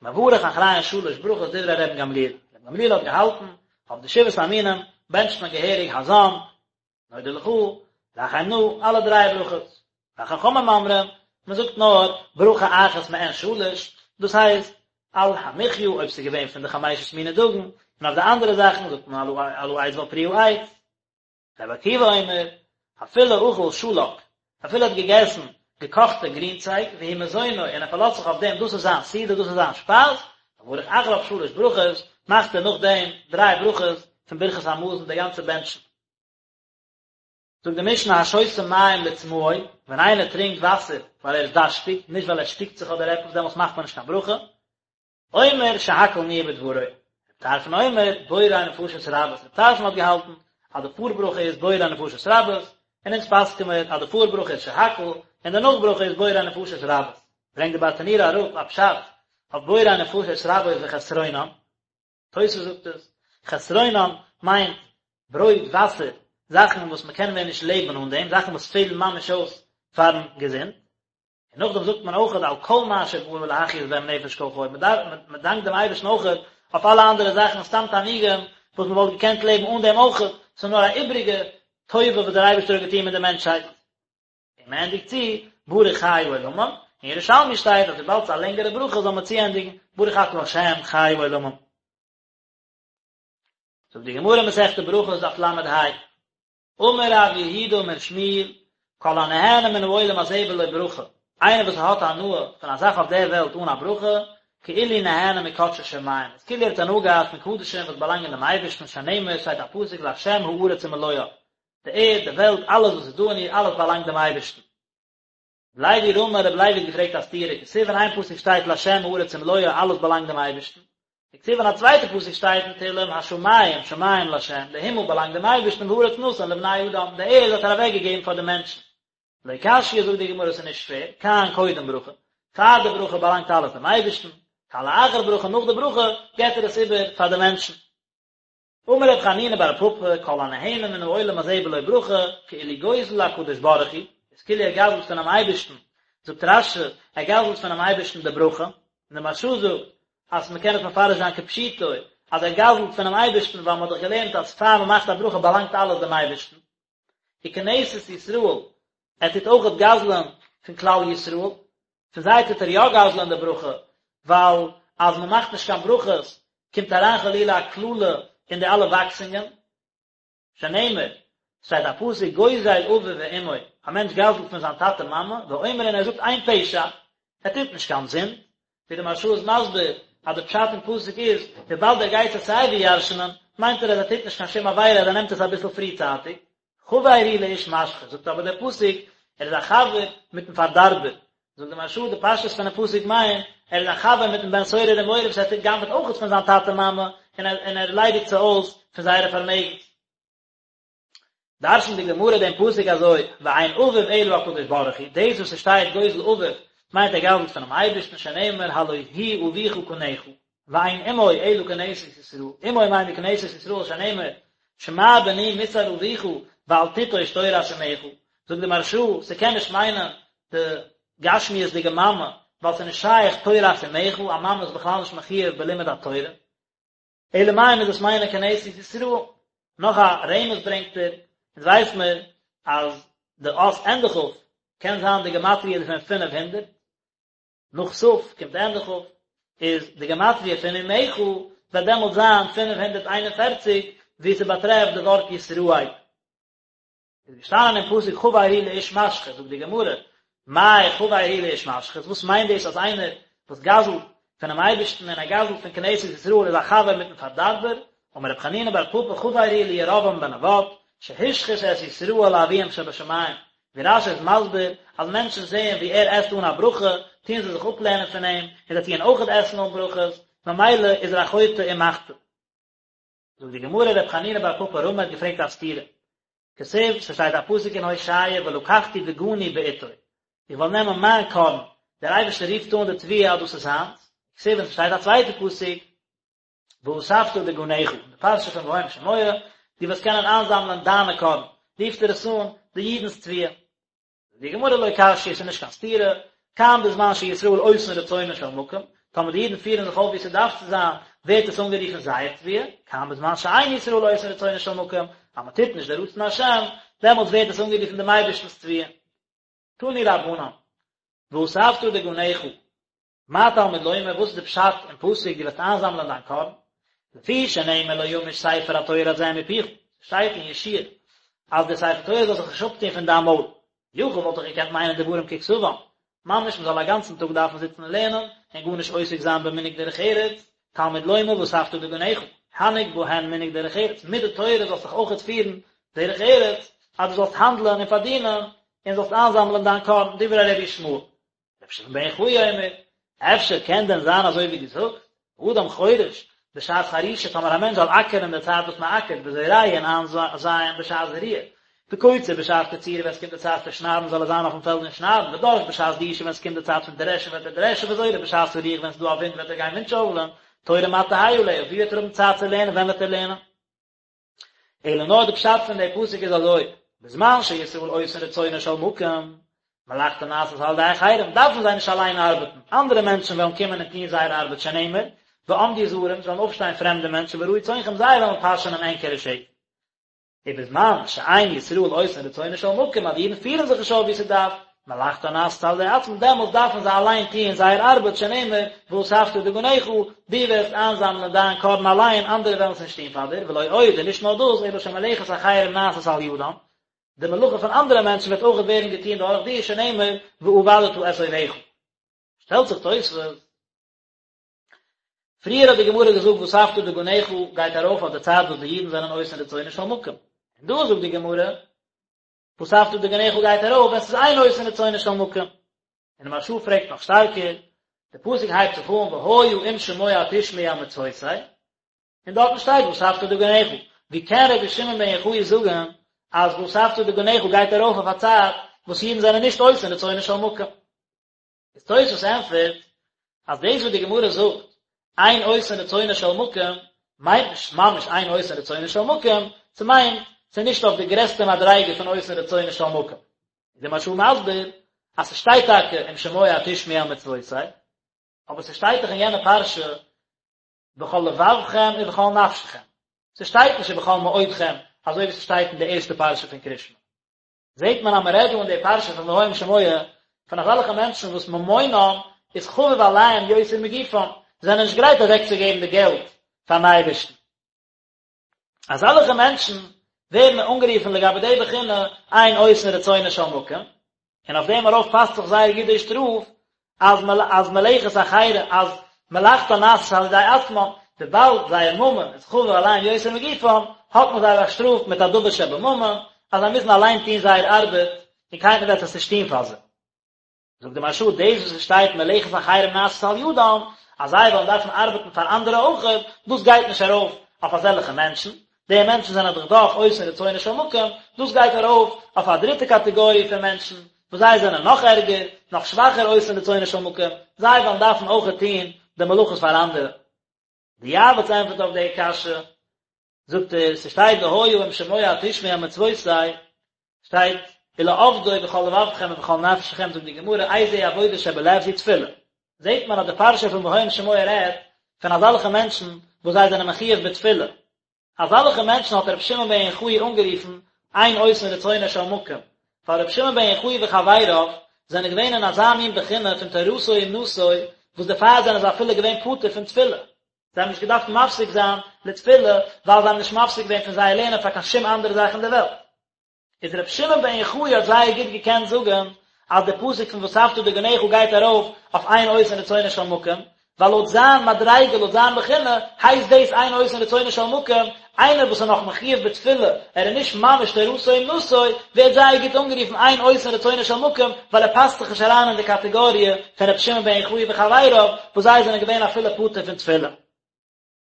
מברך אחריהן שלש ברכות דברי רבן גמליאל, רבן גמליאל האט געהאלטן, אויף די שבעת המינים בענטשט מען געהעריג הזן, נודה לך, רחם נא, אלע דריי ברכות. וחכמים אומרים, מען זאגט נאר ברכה אחת מעין שלש, דאס הייסט, על המחיה אויב ס'איז געווען פון די חמשת מיני דגן, און אויף די אנדערע זאכן זאגט מען על העץ ועל פרי העץ. רבי עקיבא אומר, אפילו אכל שלק, אפילו ער האט געגעסן געקאכטע גרינצייג, והוא מזונו, און ער פארלאזט זיך אויף דעם, דאס איז זיין סעודה, דאס איז זיין שפייז, מברך אחריו שלש ברכות, מאכט ער נאכדעם דריי ברכות פון ברכת המזון, די גאנצע בענטשן. זאגט די משנה השותה מים לצמאו, ווען איינער טרינקט וואסער ווייל ער איז דארשטיג, נישט ווייל ער שטיקט זיך אדער עפעס, דעמאלטס מאכט מען נישט קיין ברכה, אומר שהכל נהיה בדברו. טרפון אומר, בורא נפשות רבות, ר' טרפון האט געהאלטן אז די פאר ברכה איז בורא נפשות רבות, און אונז פסק'ן מיר אז די פאר ברכה איז שהכל, און די נאך ברכה איז בורא נפשות רבות. ברענגט די ברטנורא אראפ א פשט אויף בורא נפשות רבות וחסרונן, תוס' זאגט עס, חסרונן מיינט ברויט, וואסער, זאכן וואס מען קען מער נישט לעבן אן דעם, זאכן וואס פעלן ממש אויס פארן געזונט. און נאכדעם זאגט מען אויכעט על כל מה שברא להחיות בהם נפש כל חי, מען דארף, מען דאנקט דעם אייבערשטן אויכעט אויף אלע אנדערע זאכן, סתם תענוגים וואס מען וואלט געקענט לעבן אן דעם אויכעט, ס'איז נאר א איבריגע טובה וואס דער אייבערשטער האט געטון מיט די מענטשהייט. און מען ענדיגט צו ברוך חי העולמים, אין ירושלמי שטייט אז וויבאלד ס'איז א לענגערע ברכה זאל מען צוענדיגן ברוך אתה ה' חי העולמים. זאגט די גמרא מסכת ברכות דף ל"ה, אמר רב יהודה אמר שמואל, כל הנהנה מן העולם הזה בלא ברכה, איינער וואס האט הנאה פון א זאך אויף דער וועלט אן א ברכה, כאילו נהנה מקדשי שמים, איז כאילו ער האט הנאה געהאט פון קדשים וואס באלאנגען דעם אייבערשטן, שנאמר, שטייט א פסוק לה' הארץ ומלואה, די ערד, די וועלט, אלעס וואס איז דא אין איר, אלעס באלאנגט דעם אייבערשטן. רבי לוי רמי, רבי לוי האט געפרעגט א סתירה, כתיב אין איין פסוק שטייט לה' הארץ ומלואה, אלעס באלאנגט דעם אייבערשטן, וכתיב אין א צווייטע פסוק שטייט אין תהלים השמים שמים לה', די הימל באלאנגט דעם אייבערשטן והארץ נתן לבני אדם, די ערד האט ער אוועק געגעבן פאר די מענטשן. לא קשיא זאגט די גמרא ס'איז נישט שווער, כאן קודם ברכה, פאר די ברכה באלאנגט אלעס דעם אייבערשטן, כאן לאחר ברכה נאך די ברכה געבט ער עס איבער פאר די מענטשן. אמר רב חנינא בר פפא, כל הנהנה מן העולם הזה בלא ברכה, כאילו גוזל להקדוש ברוך הוא, איז כאילו ער גזל'ט פונעם אייבערשטן, זאגט רש"י, ער גזל'ט פונעם אייבערשטן די ברכה, און די מהרש"א זאגט, אז מען קען עס מפרש זיין כפשוטו, אז ער גזל'ט פונעם אייבערשטן, ווייל מען האט דאך געלערנט אז פאר מען מאכט א ברכה באלאנגט אלעס דעם אייבערשטן. וכנסת ישראל, ער טוט אויכעט גזל'ען פון כלל ישראל, פון זיי טוט ער יא גזל'ען די ברכה, ווייל אז מען מאכט נישט קיין ברכות קומט אריין חלילה א קללה אין די אלע וואקסונגען, שנאמר, שטייט א פסוק גוזל אביו ואמו, א מענטש גזל'ט פון זיין טאטע מאמע, ואומר און ער זאגט אין פשע, ער טוט נישט קיין זינד, ווי די מהרש"א איז מסביר אז די פשט אין פסוק איז, וויבאלד ער גייט עס סיי ווי ירש'נען, מיינט ער אז ער טוט נישט קיין שום עבירה אז ער נעמט עס אביסל פריצייטיג. חבר הוא לאיש משחית, זאגט אבער דער פסוק, ער איז א חבר מיטן פארדארבער. זאגט די מהרש"א, די פשטות פונעם פסוק מיינט, ער איז א חבר מיטן בן סורר ומורה וואס ער טוט גנב'עט אויכעט פון זיין טאטע מאמע, און ער ליידיגט זיי אויס פון זייערע פארמעגנס. דרש'נט די גמרא דעם פסוק אזוי, ואין אביו אלא הקדוש ברוך הוא, דאס וואס עס שטייט גוזל אביו מיינט ער גזל'ט פונעם אייבערשטן שנאמר הלא הוא אביך קנך, ואין אמו אלא כנסת ישראל, אמו מיינט די כנסת ישראל שנאמר שמע בני מוסר אביך ואל תיטוש תורת אמך, זאגט די מהרש"א, ס'קען נישט מיינען די גשמיות'דיגע מאמע, ווייל ס'איז נישט שייך תורת אמך, א מאמע איז בכלל נישט מחויב בלימוד התורה. אלא מאי מוז עס מיינען כנסת ישראל. נאך א רמז ברענגט ער, אונז ווייס מיר אז די אות ענדע כ' קען זיין די גמטריא דערפון 500, נאך ת' קומט ענדע כ', איז די גמטריא פון אמך וועט דעמאלט זיין 541 ווי ס'באטרעפט די ווארט ישראל. איז געשטאנען אין פסוק חבר הוא לאיש משחית, זאגט די גמרא, מאי חבר הוא לאיש משחית, וואס מיינט דאס אז איינער וואס גזל'ט פונעם אייבערשטן און ער גזל'ט פון כנסת ישראל איז א חבר מיטן פארדארבער, אמר רב חנינא בר פפא חבר הוא לירבעם בן נבט, שהשחית את ישראל לאביהם שבשמים, ווי רש"י איז מסביר אז מענטשן זעען ווי ער עסט אן א ברכה, טוען זיי זיך אפלערנען פון אים, און זיי טוען אויכעט עסן אן ברכות, ממילא איז ער א חוטא ומחטיא. זאגט די גמרא רב חנינא בר פפא רמי האט געפרעגט א סתירה, כתיב, ס'שטייט א פסוק אין הושע ולקחתי דגני בעתו, איך וועל נעמען מיין קארן, דער אייבערשטער רופט אן די תבואה אז דאס איז זיינס, וכתיב און ס'שטייט א צווייטע פסוק ואספת דגנך, אין די פרשה פון והיה אם שמוע, דו וועסט קענען איינזאמלען דיינע קארן, רופט ער עס אן די אידנ'ס תבואה. די גמרא לא קשיא ס'איז נישט קיין סתירה, כאן בזמן שישראל עושין רצונו של מקום, טאמער די אידן פירן זיך אויף ווי ס'דארף צו זיין, ווערט עס אנגערופן זייער תבואה, כאן בזמן שאין ישראל עושין רצונו של מקום, אז מען טוט נישט די רצון השם, דעמאלטס ווערט עס אנגערופן דעם אייבערשטנ'ס תבואה. תנו רבנן, ואספת דגנך, מה תלמוד לומר, וואס איז די פשט אין פסוק דו וועסט איינזאמלען דיין קארן? לפי שנאמר לא ימוש ספר התורה הזה מפיך, שטייט אין יהושע אז דער ספר תורה זאל זיך נישט אפטון פון דיין מויל, יכול וואלט איך געקענט מיינען דברים ככתבם, ממש מען זאל א גאנצן טאג דארפן זיצן און לערנען און גארנישט עוסק זיין במנהג דרך ארץ, תלמוד לומר ואספת דגנך, הנהג בהן מנהג דרך ארץ, מיט די תורה זאלסט זיך אויכעט פירן דרך ארץ, אז דו זאלסט האנדלען און פארדינען און זאלסט איינזאמלען דיין קארן, דברי רבי ישמעאל. רבי שמעון בן יוחאי אומר, אפשר קען דען זיין אזוי ווי דו זאגסט, אדם חורש, בשעת חרישה, טאמער א מענטש זאל אקערן אין די צייט וואס מען אקערט, וזורע און איינזייען בשעת זריעה, וקוצר בשעת קצירה ווען עס קומט די צייט פון שניידן זאל ער זיין אויפן פעלד און שניידן, ודש בשעת דישה ווען עס קומט די צייט פון דרעשן וועט ער דרעשן, וזורה בשעת הרוח ווען עס איז דא א ווינט וועט ער גיין ווינטשויפלען, תורה מה תהא עליה, ווי וועט ער האבן צייט צו לערנען, ווען וועט ער לערנען? אלא נאר די פשט פון די פסוק איז אזוי, בזמן שישראל עושין רצונו של מקום, מלאכתן נעשית על ידי אחרים, דארפן זיי נישט אליין ארבעטן, אנדערע מענטשן וועלן קומען און טון זייער ארבעט שנאמר, ועמדו זרים, עס וועלן אויפשטיין פרעמדע מענטשן ורעו צאנכם זיי וועלן פאשענען ענקערע שעף. ובזמן שאין ישראל עושין רצונו של מקום, אז די אידן פירן זיך נישט אויף ווי ס'דארף, מלאכתן נעשית על ידי עצמן, דעמאלטס דארפן זיי אליין טוען זייער ארבעט, שנאמר, ואספת דגנך, דו וועסט איינזאמלען דיין קארן אליין, אנדערע וועלן עס נישט טון פאר דיר, ולא עוד, און נישט נאר דאס, אלא שמלאכת אחרים נעשית על ידם, די מלאכה פון אנדערע מענטשן וועט אויך ווערן געטון דורך דיר, שנאמר, ועבדת את אויביך. שטעלט זיך תוספות, פריער האט די גמרא געזאגט ואספת דגנך גייט ארויף אויף די צייט וואס די אידן זענען עושין רצונו של מקום, און דא זאגט די גמרא, ואספת דגנך גייט ארויף ווען ס'איז אין עושין רצונו של מקום. און די מהרש"א פרעגט נאך שטארקער, די פסוק הייבט זיך אן והיה אם שמוע תשמעו אל מצותי, און דארטן שטייט ואספת דגנך, ווי קען רבי שמעון בן יוחאי זאגן אז ואספת דגנך גייט ארויף אויף א צייט וואס אידן זענען נישט עושין רצונו של מקום? איז תוספות ענטפערט אז דאס וואס די גמרא זאגט אין עושין רצונו של מקום מיינט נישט ממש אין עושין רצונו של מקום, ס'מיינט ס'איז נישט אויף די גרעסטע מדריגה פון עושין רצונו של מקום. איז די מהרש"א מסביר אז ס'שטייט טאקע אם שמוע תשמעו אל מצותי, אבער ס'שטייט דאך אין יענע פרשה בכל לבבכם ובכל נפשכם, ס'שטייט נישט ובכל מאודכם אזוי ווי ס'שטייט אין די ערשטע פרשה פון קריאת שמע. זעט מען אז מען רעדט דא אין די פרשה פון והיה אם שמוע פון אזעלכע מענטשן וואס ממונם איז חביב עליהם יותר מגופם, זיי זענען נישט גרייט אוועקצוגעבן די געלט פארן אייבערשטן. אזעלכע מענטשן ווערן אנגערופן לגבי די בחינה אין עושין רצונו של מקום, און אויף דעם ארויף פאסט זיך זייער גוט די שטראף אז אז מלאכת אחרים אז מלאכתן נעשית על ידי עצמם, וויבאלד זייער ממון איז חביב עליהם יותר מגופם, האט מען זיי באשטראפט מיט א דבר שבממון, אז זיי מוזן אליין טון זייער ארבעט, און קיינער וועט עס נישט טון פאר זיי. זאגט די מהרש"א, דאס וואס עס שטייט מלאכת אחרים נעשית על ידם, אז זיי וועלן דארפן ארבעטן פאר אנדערע אויכעט, דאס גייט נישט ארויף אויף אזעלכע מענטשן, די מענטשן זענען דאך דאך עושין רצונו של מקום, דאס גייט ארויף אויף א דריטע קאטעגאריע פון מענטשן, וואס זיי זענען נאך ערגער, נאך שוואכער עושין רצונו של מקום, זיי וועלן דארפן אויכעט טון די מלאכות פאר אנדערע. די יעב"ץ ענטפערט אויף די קשיא, זאגט ער, ס'שטייט והיה אם שמוע תשמעו אל מצותי, שטייט ולעבדו בכל לבבכם ובכל נפשכם, זאגט די גמרא, איזה עבודה שבלב זו תפילה. זעט מען אז די פרשה פון והיה אם שמוע רעדט פון אזעלכע מענטשן וואס זיי זענען מחויב בתפילה, אזעלכע מענטשן האט רבי שמעון בן יוחאי אנגערופן אין עושין רצונו של מקום, ווייל רבי שמעון בן יוחאי וחבריו זענען געווען אין אזא מין בחינה פון תורתו אומנותו וואס דערפאר זענען זיי אפילו געווען פטור פון תפילה, זיי האבן נישט געדארפט מפסיק זיין לתפילה ווייל זיי האבן נישט מפסיק געווען פון זייער לערנען פאר קיין שום אנדערע זאך אין די וועלט. איז רבי שמעון בן יוחאי האט זייער גוט געקענט זאגן אז די פסוק פון ואספת דגנך גייט ארויף אויף אין עושין רצונו של מקום, ווייל לויט זיין מדריגה לויט זיין בחינה הייסט דאס אין עושין רצונו של מקום, איינער וואס איז נאך מחויב בתפילה, ער איז נישט ממש תורתו אומנותו, ווערט זייער גוט אנגערופן אין עושין רצונו של מקום, ווייל ער פאסט זיך נישט אריין אין די קאטעגאריע פון רבי שמעון בן יוחאי וחבריו, וואס זיי זענען געווען אפילו פטור פון תפילה.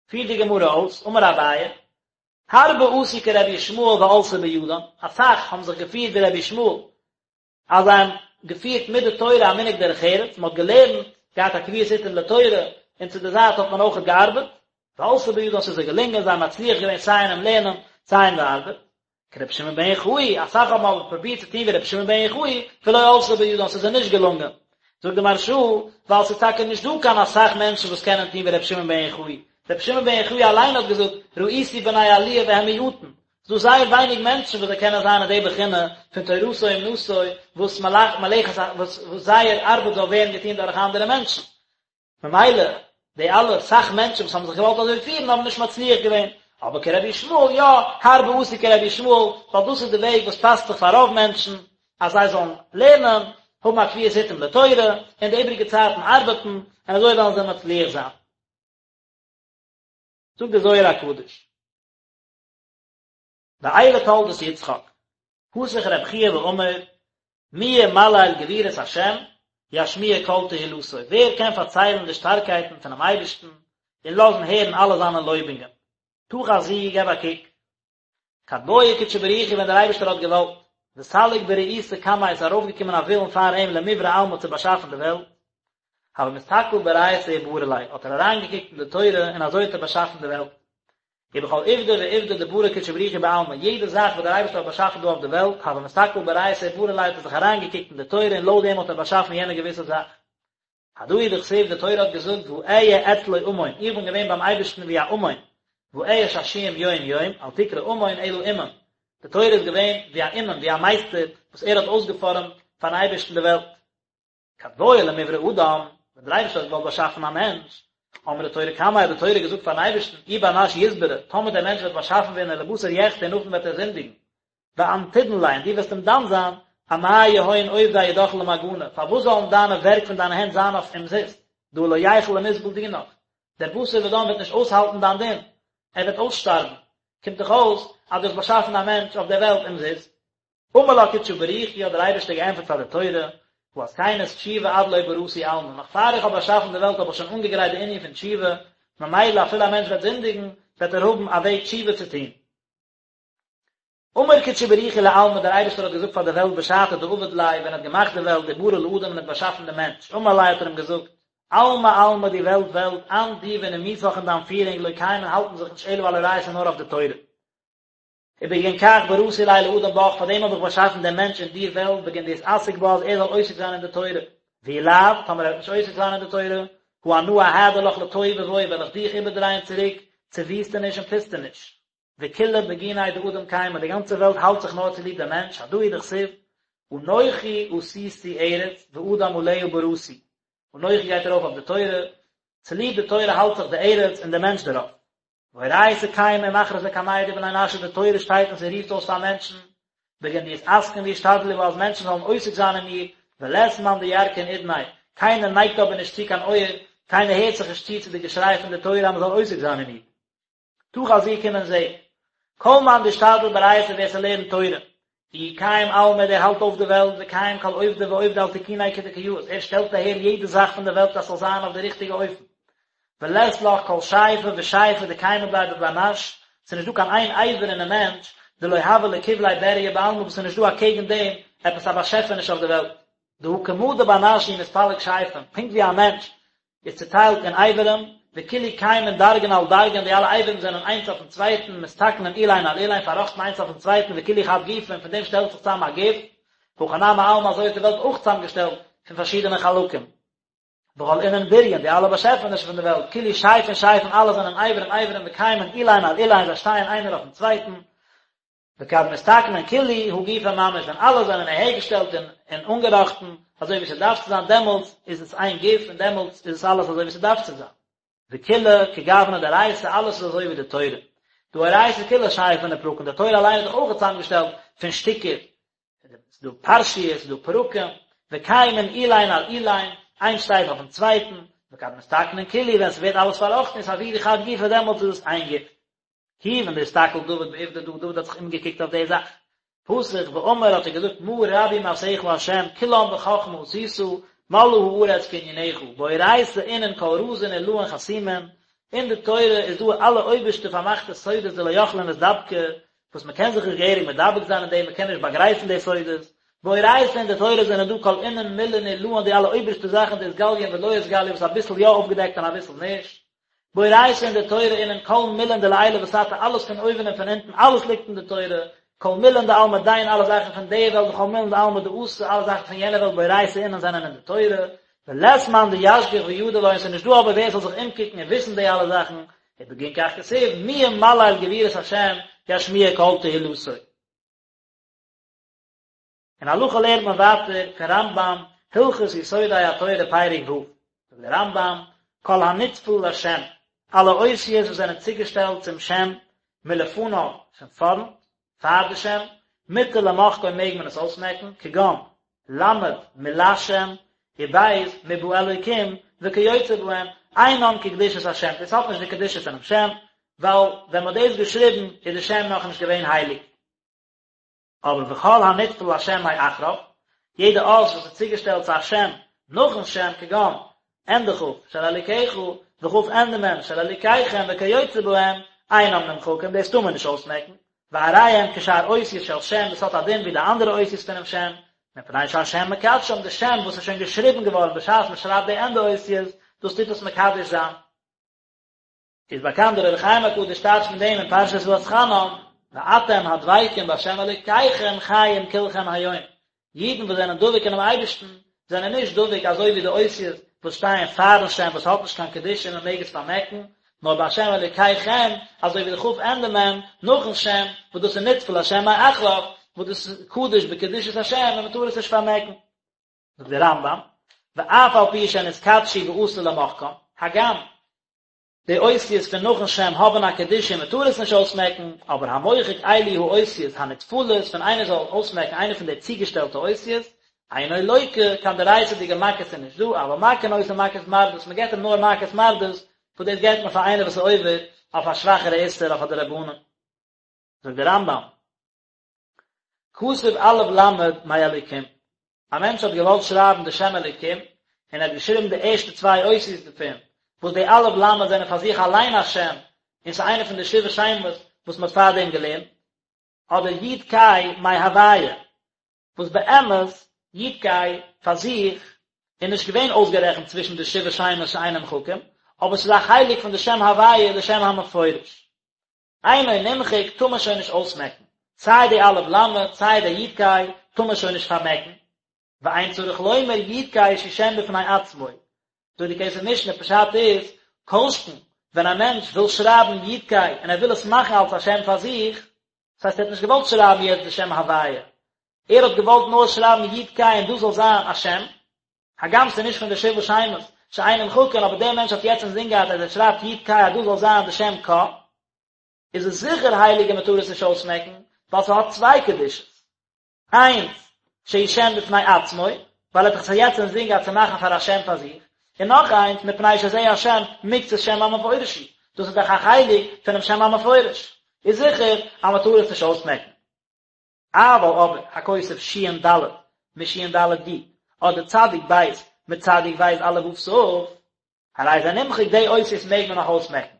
פירט די גמרא אויס, אמר אביי, הרבה עשו כרבי ישמעאל ועלתה בידן, אסאך האבן זיך געפירט ווי רבי ישמעאל, אז זיי האבן געפירט מיט די תורה א מנהג דרך ארץ, מען האט געלערנט, געהאט א קביעות עתים לתורה, און צו די זייט האט מען אויכעט געארבעט, ועלתה בידן ס'איז זיי געלונגען, זיי האבן מצליח געווען סיי אינעם לערנען, סיי אין די ארבעט. כרבי שמעון בן יוחאי, אסאך האבן אבער פרובירט צו טון ווי רבי שמעון בן יוחאי, ולא עלתה בידן, ס'איז זיי נישט געלונגען. זאגט די מהרש"א, ווייל ס'איז טאקע נישט דא קיין אסאך מענטשן וואס קענען טון ווי רבי שמעון בן יוחאי. רבי שמעון בן יוחאי אליין האט געזאגט, ראיתי בני עליה והם מועטין. ס'איז דא זייער ווייניג מענטשן וואס זיי קענען זיין אין די בחינה פון תורתו אומנותו, וואס מלאכת וואס זייער ארבעט זאל ווערן געטון דורך אנדערע מענטשן. ממילא די אלע סאך מענטשן וואס האבן זיך געוואלט אזוי פירן האבן נישט מצליח געווען, אבער כרבי ישמעאל יא, הרבה עשו כרבי ישמעאל, ווייל דאס איז די וועג וואס פאסט זיך פאר רוב מענטשן, אז זיי זאלן לערנען, האבן א קביעות עתים לתורה, און די איבריגע צייטן ארבעטן, און אזוי וועלן זיי מצליח זיין. זאגט דער זוהר הקדוש. ואלה תולדות יצחק, פתח רב חייא ואמר, מי ימלל גבורות השם, ישמיע כל תהילתו, ווער קען פארציילן די שטארקייטן פונעם אייבערשטן, און לאזן הערן אלע זיינע לויבונגען. תא חזי, געב א קוק. כד בעי קודשא בריך הוא ווען דער אייבערשטער האט געוואלט, וסליק ברעותא קמיה איז ארויפגעקומען א ווילן פאר אים למיברא עלמא צו באשאפן די וועלט, הוה מסתכל באורייתא וברא ליה, האט ער אריינגעקוקט אין די תורה און אזוי האט ער באשאפן די וועלט. ובכל עובדא ועובדא דברא קודשא בריך הוא בעלמא, יעדע זאך וואס דער אייבערשטער האט באשאפן דא אויף די וועלט, הוה מסתכל באורייתא וברא ליה האט ער זיך אריינגעקוקט אין די תורה און לויט דעם האט ער באשאפן יענע געוויסע זאך. הדא הוא דכתיב די תורה האט געזאגט ואהיה אצלו אמון, איך בין געווען ביים אייבערשטן ווי א אמון, ואהיה שעשועים יום יום, אל תקרי אמון אלא אומן, די תורה איז געווען ווי א אומן, ווי א מייסטער וואס ער האט אויסגעפארעמט פארן אייבערשטן די וועלט. כד בעי למיברא אדם, ווען דער אייבערשטער האט געוואלט באשאפן א מענטש, אמרה תורה קמיה האט די תורה געזאגט פארן אייבערשטן, אי בר נש יתברי, טאמער דער מענטש וועט באשאפן ווערן ולבתר יחטא און נאכדעם וועט ער זינדיגן, ואנת תדון ליה און דו וועסט אים דן זיין, אמאי יהון עובדי ידך למגנא, פארוואס זאלן דיינע ווערק פון דיינע הענט זיין אויף אומזיסט, דהא לא ייכול למסבל דינך, דער בשר ודם וועט נישט אויסהאלטן דיין דין, ער וועט אויסשטארבן, קומט דאך אויס אז דו האסט באשאפן א מענטש אויף דער וועלט אומזיסט. אמר לה קודשא בריך הוא האט דער אייבערשטער געענטפערט פאר די תורה, הא אתקנת תשובה עד לא בראתי עלמא, נאך פאר איך האב באשאפן די וועלט האב איך שוין אנגעגרייט די ענין פון תשובה, ממילא אפילו א מענטש וועט זינדיגן, וועט ער האבן א וועג תשובה צו טון. אמר קודשא בריך הוא לעלמא, דער אייבערשטער האט געזאגט פאר די וועלט בשעתא דעבד ליה, ווען ער האט געמאכט די וועלט, וברא לאדם און האט באשאפן דעם מענטש, אמר ליה האט ער אים געזאגט, עלמא עלמא די וועלט וועלט, אנת דו ונימוסך און דיין פירונג לא קיימין האלטן זיך נישט אלא על אורייתא נאר אויף די תורה. ובגין כך בראתי ליה לאדם בך, פאר דעם האב איך באשאפן דעם מענטש אין דיר וועלט, בגין דיתעסק בה אז ער זאל עוסק זיין אין די תורה. ואי לאו, טאמער ער וועט נישט עוסק זיין אין די תורה, הא אנא אהדר לך לתוהו ובוהו וועל איך דיך איבערדרייען צוריק צו וויסטעניש און פוסטעניש. וכולא בגיניה דאדם קיימא, די גאנצע וועלט האלט זיך נאר צוליב דעם מענטש, הדא הוא דכתיב, אנכי עשיתי ארץ ואדם עליה בראתי, אנכי גייט ארויף אויף די תורה, צוליב די תורה האלט זיך די ארץ און דער מענטש דערויף. ואורייתא קיימא ומכרזא קמיה דבני נשא, די תורה שטייט און ס'רופט אויס פאר מענטשן, בגין דיתעסקון וישתדלו בה אז מענטשן זאלן עוסק זיין אין איר, ולית מאן דירכין אודניה, קיינער נייגט אבער נישט צו קיין אויער, קיינער הערט זיך נישט צו צו די געשריי פון די תורה אז מ'זאל עוסק זיין אין איר. תא חזי קום און זע. כל מאן דאשתדל באורייתא ווער ס'לערנט תורה. איהו קיים עלמא דער האלט אויף די וועלט וקיים כל עובדא ועובדא על תקוניה כדקא יאות ער שטעלט אהער יעדע זאך פון די וועלט אז ס'זאל זיין אויף די ריכטיגע אופן. ולית לך כל שייפא ושייפא דקיימא ביה בבר נש, ס'איז נישט דא קיין איין אבר אינעם מענטש דלא הוה לקבליה בריה בעלמא וואס איז נישט דא אקעגן דעם עפעס א באשעפעניש אויף די וועלט. דהא כמה דבר נש הוא מתפלג שייפין, פונקט ווי א מענטש איז צוטיילט אין אברים, וכולהו קיימין דרגין על דרגין, די אלע אברים זענען איינס אויפן צווייטן, מתתקנין אילין על אילין, פארראכטן איינס אויפן צווייטן, וכולהו חד גופא, און פון דעם שטעלט זיך צוזאם א גוף, הכי נמי עלמא אזוי איז די וועלט אויך צוזאמגעשטעלט פון פארשידענע חלקים. וכל אינון בריין, די אלע באשעפענישן פון די וועלט, כולהו שייפין שייפין, אלע זענען אברים אברים, וקיימין אילין על אילין, זיי שטייען איינער אויפן צווייטן, וכד מתתקנין כולהו הא גופא ממש, ווען אלע זענען אהערגעשטעלט און און אנגעראכטן אזוי ווי ס'דארף צו זיין, דעמאלטס איז עס איין גוף און דעמאלטס איז עס אלעס אזוי ווי ס'דארף צו זיין. וכולא כגוונא דאורייתא, אלעס איז אזוי ווי די תורה. דהא אורייתא כולה שייפין ופרקין, די תורה אליין איז דאך אויך צוזאמגעשטעלט פון שטיקער, ס'איז דא פרשיות, ס'איז דא פרקים, וקיימין אילין על אילין, איינס שטייט אויפן צווייטן, וכד מתתקנין כולהו, ווען ס'ווערט אלעס פארראכטן אתעבידו חד גופא דעמאלטס איז עס איין גוף. כיוון דאסתכל דוד בעובדא דא, דוד האט זיך אומגעקוקט אויף די זאך. פתח ואמר האט ער געזאגט מה רבו מעשיך ה' כולם בחכמה עשית, מלאה הארץ קנינך, באורייתא אינון כל רזין עלאין חתימין, אין די תורה איז דא אלע אויבערשטע פארמאכטע סודות דלא יכלין לאתדבקא, וואס מען קען זיך נישט געהעריג מדבק זיין אין דעם, מען קען נישט באגרייפן די סודות, באורייתא אין די תורה זענען דא כל אינון מילין עלאין די אלע אויבערשטע זאכן דאתגליין ולא אתגליין וואס אביסל יא אויפגעדעקט און אביסל נישט. באורייתא אין די תורה אינון כל מילין דלעילא ותתא אלעס פון אויבן און פון אונטן אלעס ליגט אין די תורה, כל מילין דעלמא דין אלע זאכן פון די וועלט וכל מילין דעלמא דאתי אלע זאכן פון יענע וועלט באורייתא אינון זענען אין די תורה, ולית מאן דישגח וידע לון ס'איז נישט דא אבער ווער ס'זאל זיך אומקוקן און וויסן די אלע זאכן, ובגין כך כתיב מי ימלל גבורות השם ישמיע כל תהילתו. אין הלכה לערנט מען ווייטער פון רמב"ם, הלכות יסודי התורה פרק ו', זאגט דער רמב"ם, כל הנטפל לשם, אלע אותיות וואס זענען צוגעשטעלט צום שם, מלפניו, פון פארנט, פאר די שם, מותר למחקו מעג מען עס אויסמעקן, כגון, ל' מלשם, וב' מבאלוקים, וכיוצא בהם, אינן כקדושת השם, דאס האט נישט די קדושה פונעם שם, ווייל ווען מען האט דאס געשריבן איז די שם נאכנישט געווען הייליג. אבער וכל הנטפל לשם מאחריו, יעדע אות וואס איז צוגעשטעלט צו א שם נאכן שם, כגון. ענדע כ' של אלקיך, וכ' ענדע מ' של אלקיכם וכיוצא בהם, אינם נמחקים, דאס טאר מען נישט אויסמעקן, והרי הם כשאר אותיות של שם, דאס האט א דין ווי די אנדערע אותיות פונעם שם, מפני שהשם מקדשם, די שם וואס איז שוין געשריבן געווארן בשעת מען שרייבט די ענדע אותיות, דאס טוט עס מקדש זיין. איז באקאנט דער אור החיים הקדוש טייטשט פון דעם אין פרשת ואתחנן, ואתם הדבקים בה' אלוקיכם חיים כולכם היום, אידן וואס זענען דבוק אינעם אייבערשטן זענען נישט דבוק אזוי ווי די אותיות וואס שטייען פארן שם וואס האט נישט קיין קדושה און מען מעג עס פארמעקן, נאר בה' אלוקיכם אזוי ווי די כ' ענדע מ' נאכן שם וואס דאס איז נטפל לשם מאחריו וואס דאס איז קדוש בקדושת השם און מען טאר עס נישט פארמעקן. זאגט דער רמב"ם, ואף על פי שנתקדשו ואסור למחקם, הגם די אותיות פון נאכן שם האבן א קדושה און מען טאר עס נישט אויסמעקן, אבער המוחק אלו האותיות הנטפלות, ווען איינער זאל אויסמעקן איינע פון די צוגעשטעלטע אותיות, אינו לוקה, קיין דאורייתא'דיגע מכות איז נישט דא, אבל מכין אותו מכת מרדות, מען געבט אים נאר מכת מרדות, וואס דאס געבט מען פאר איינער וואס איז עובר אויף א שוואכערע איסור אויף א דרבנן. זאגט דער רמב"ם. כתב א' למד מאלוקים, א מענטש האט געוואלט שרייבן די שם אלוקים, און ער האט געשריבן די ערשטע צוויי אותיות דערפון, וואס די א' למד זענען פאר זיך אליין א שם, און ס'איז איינע פון די שבעה שמות וואס מ'האט פארדעם געלערנט, אדער י' ק' מהוויה, וואס באמת י' ק' פאר זיך איז נישט געווען אויסגערעכנט צווישן די שבעה שמות שאין נמחקים, אבער ס'איז א חלק פון די שם הוויה, די שם המפורש. אינו נמחק טאר מען שוין נישט אויסמעקן, סיי די א' למד סיי די י' ק' טאר מען שוין נישט פארמעקן, ואין צריך לומר י' ק' שהוא שם בפני עצמו, זאגט די כסף משנה פשט איז, כל שכן ווען א מענטש וויל שרייבן י' ק' און ער וויל עס מאכן אלס א שם פאר זיך, דאס הייסט ער האט נישט געוואלט שרייבן יעצט די שם הוויה, ער האט געוואלט נאר שרייבן י' ק' און דאס זאל זיין א שם, הגם ס'איז נישט פון די שבעה שמות שאין נמחקין אבער דער מענטש האט יעצט אינזין געהאט אז ער שרייבט י' ק' אז דאס זאל זיין די שם קה, איז עס זיכער הייליג און מ'טאר עס נישט אויסמעקן, ווייל ס'האט צוויי קדושות. איינס, שהוא שם בפני עצמו, ווייל ער האט דאך עס יעצט אינזין געהאט צו מאכן פאר א שם פאר זיך, און נאך איינס, מפני שזה השם מקצת שם המפורש הוא, דאס איז דאך א חלק פונעם שם המפורש, איז זיכער אז מ'טאר עס נישט אויסמעקן. אבל אבער הכותב שין ד' משין ד' י' אדער צדיק ב' מצדיק ב' א' ו' ת', הרי זה נמחק די אותיות מעג מען נאך אויסמעקן.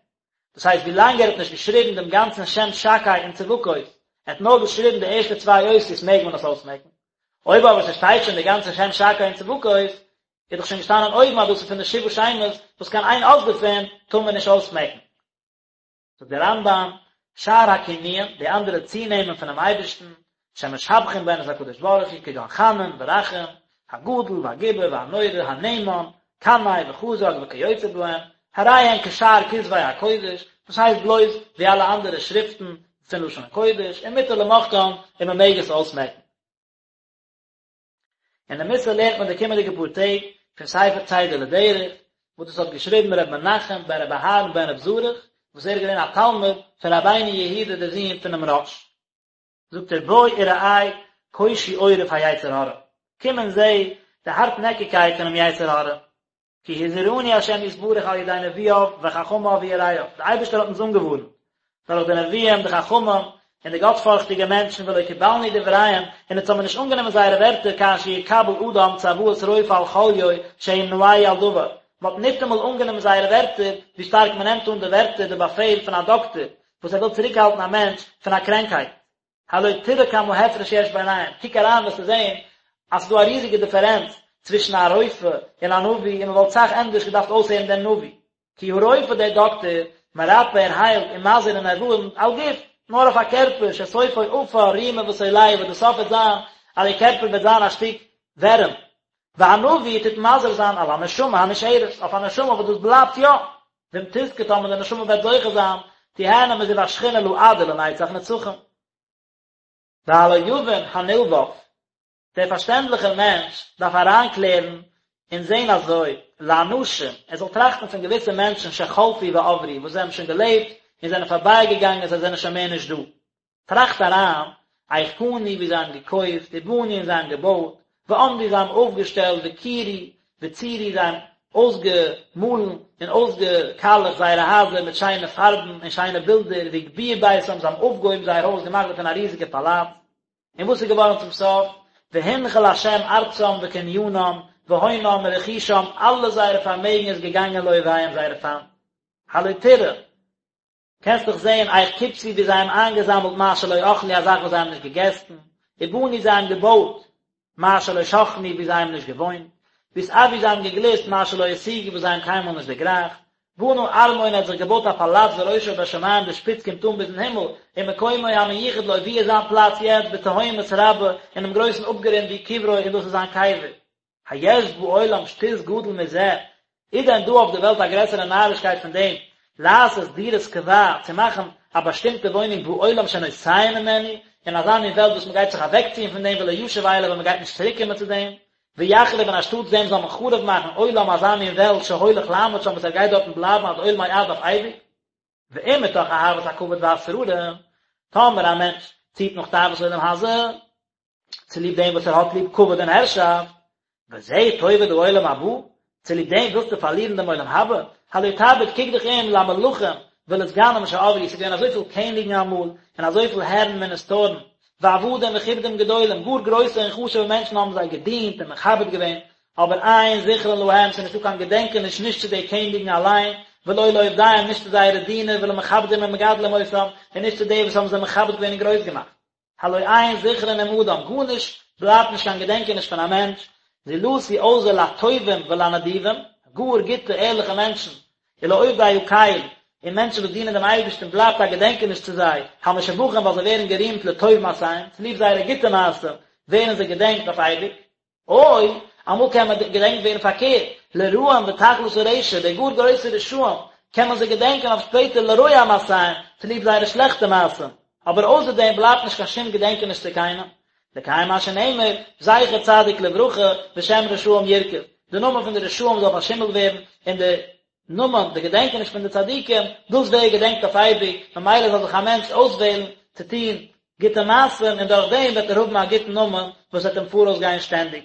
דאס הייסט ווי לאנג ער האט נישט געשריבן דעם גאנצן שם שקי און צבקות, ער האט נאר געשריבן די ערשטע צוויי אותיות מעג מען עס אויסמעקן. אויב אבער ס'שטייט שוין די גאנצע שם שקי און צבקות, איז דאך שוין געשטאנען אויבן אז דאס איז פון די שבעה שמות וואס קיין איין אות דערפון טאר מען נישט אויסמעקן. זאגט דער רמב"ם, שאר הכינויים, די אנדערע צונעמען פונעם אייבערשטן, שמשבחין בהן את הקדוש ברוך הוא, כגון חנון ורחום, הגדול והגיבור והנורא, הנאמן, קנאי וחזק וכיוצא בהם, הרי הן כשאר כתבי הקודש, דאס הייסט בלויז ווי אלע אנדערע שריפטן פון לשון הקודש, ומותר למחקן, און מען מעג עס אויסמעקן. און די מוסר לערנט מען די קומענדיגע פאר טעג פון ספר צידה לדרך, וואס דאס האט געשריבן ר' מנחם בן ר' אהרן בן ר' זרח, וואס ער איז געווען א תלמיד פון רבינו יהודה דער זון פונעם רא"ש. זאגט ער בוא וראה קושי עורף היצר הרע, קום און זע די הארטנעקיגקייט פונעם יצר הרע, כי הזהירנו השם יתברך על ידי נביאיו וחכמיו ויראיו, דער אייבערשטער האט אונז אנגעווארנט דורך די נביאים, די חכמים, און די גאטפארכטיגע מענטשן, ולא קיבלנו דבריהם, און אונז האבן נישט אנגענומען זייערע ווערטער כאשר יקבל אדם צוואת רופא על חוליו שימנעהו על דבר, מען האט ניטאמאל אנגענומען זייערע ווערטער, ווי שטארק מען נעמט אן די ווערטער, די באפעל פון א דאקטער, וואס ער וויל צוריקהאלטן א מענטש פון א קרענקהייט. הלא תראה כמה הפרש יש ביניהם, קוק אריין וועסטו זען אז ס'איז דא א ריזיגע דיפערענץ צווישן א רופא און א נביא און מ'וואלט סאך ענדערש געדארפט אויסהערן דעם נביא, כי הרופא דער דאקטער, מרפא ער היילט ומזהיר און ער ווארנט על גוף, נאר אויף א קערפער, שסופו עפר רימה ותולעה וואס די סוף וועט זיין אז די קערפער וועט זיין א שטיק ווערים, והנביא טוט מזהיר זיין על הנשמה הנשארת, אויף א נשמה וואס דאס בלייבט יא, ואם תזכה טאמער די נשמה וועט זוכה זיין, תיהנה מזיו השכינה לעד ולנצח נצחים. והלא יבין הנלבב, דער פארשטענדליכער מענטש דארף אריינקלערן און זען אזוי, לאנשים, ער זאל טראכטן פון געוויסע מענטשן שחלפו ועברו, וואס זיי האבן שוין געלעבט און זענען פארבייגעגאנגען, זיי זענען שוין מער נישט דא. טראכט אריין, איך קנו ווי זיי האבן געקויפט, ובנו און זיי האבן געבויט, ועמדו זיי האבן אויפגעשטעלט, וכירו, וציירו זיי האבן אויסגעמאלן און אויסגעקאלעכט זייערע הייזער מיט שיינע פארבן און שיינע בילדער, והגביהו ביתם זיי האבן אויפגעהויבן זייער הויז געמאכט דערפון א ריזיגע פאלאץ. און וואס איז געווארן צום סוף? והנחיל השם ארצם וקנינם. והונם ורכושם, אלע זייערע פארמעגן איז געגאנגען לאויביהם זייערע פיינט. הלא תראה, קענסט דאך זען איך קבצו ווי זיי האבן איינגעזאמלט מה שלא אכלו א זאך וואס זיי האבן נישט געגעסן, ובנו זיי האבן געבויט מה שלא שכנו ווי זיי האבן נישט געוואוינט, והתאוו זיי האבן געגליסט מה שלא השיגו וואס זיי האבן קיינמאל נישט דערגרייכט, בנה ארמון ער האט זיך געבויט א פאלאץ וראשו בשמים די שפיץ קומט אן ביזן הימל, ומקומו המיוחד לו ווי איז זיין פלאץ יעצט בתהומות רבה אינעם גרויסן אפגרונד והוא קברו און דאס איז זיין קבר. היש בעולם שטות גדול מזה, איז דען דא אויף די וועלט א גרעסערע נארישקייט פון דעם, לעשות דירת קבע, צו מאכן א באשטימטע וואוינונג בעולם שנוסעים ממנו, אין אזא מין וועלט וואס מען גייט זיך אוועקציען פון דעם ולא ישוב אליו און מען גייט נישט צוריקקומען צו דעם, ויחריב און אנשטאטס דעם זאל מען חרוב מאכן עולם אזא מין וועלט שהולך לעמוד שם וואס ער גייט דארטן בלייבן עד עולמי עד אויף אייביג. ואם מתוך אהבת הכבוד והשררה, טאמער א מענטש ציט נאך תאוות עולם הזה, צוליב דעם וואס ער האט ליב כבוד און הערשאפט, בזה תאבד העולם הבא, צוליב דעם ווילסטו פארלירן דעם עולם הבא? הלא תביט, קוק דיך אום, למלכים ולסגנים שעברו, ס'איז געווען אזויפיל קעניגן אמאל, און אזויפיל הערן מיניסטארן, ועבדים וכבודים גדולים, גאר גרויסע און חשוב'ע מענטשן האבן זיי געדינט און מכבד געווען, אבער אין זכרון להם, ס'איז נישטא קיין געדענקעניש נישט צו די קעניגן אליין, ולא לעובדיהם, נישט צו זייערע דינער, ולמכבדים ומגדלים אותם, און נישט צו די וואס האבן זיי מכבד געווען און גרויס געמאכט. הלא אין זכרון עם אדם, גארנישט בלייבט נישט קיין געדענקעניש פון א מענטש, זולתי אויסער לטובים ולנדיבים, גאר גוטע ערליכע מענטשן, ולעובדי הקל, און מענטשן וואס דינען דעם אייבערשטן בלייבט א געדענקעניש צו זיי, המשובחים ווייל זיי ווערן גערימט לטוב מעשיהם, צוליב זייערע גוטע מעשים ווערן זיי געדענקט אויף אייביג. או, אמאל קען מען געדענקט ווערן פארקערט, לרעים בתכלית הרשע, די גאר גרויסע רשעים, קען מען זיי געדענקען אויף שפעטער לרוע מעשיהם, צוליב זייערע שלעכטע מעשים, אבער אויסער דעם בלייבט נישט קיין שום געדענקעניש צו קיינעם. לקיים מה שנאמר, זכר צדיק לברכה, ושם רשעים ירקב, די נאמען פון די רשעים זאל פארשימלט ווערן, און די נאמען, די געדענקעניש פון די צדיקים, דאס ווערט געדענקט אויף אייביג, ממילא זאל זיך א מענטש אויסוועלן צו טון גוטע מעשים, און דורך דעם וועט ער האבן א גוטן נאמען וואס וועט אים פאראויס גיין שטענדיג.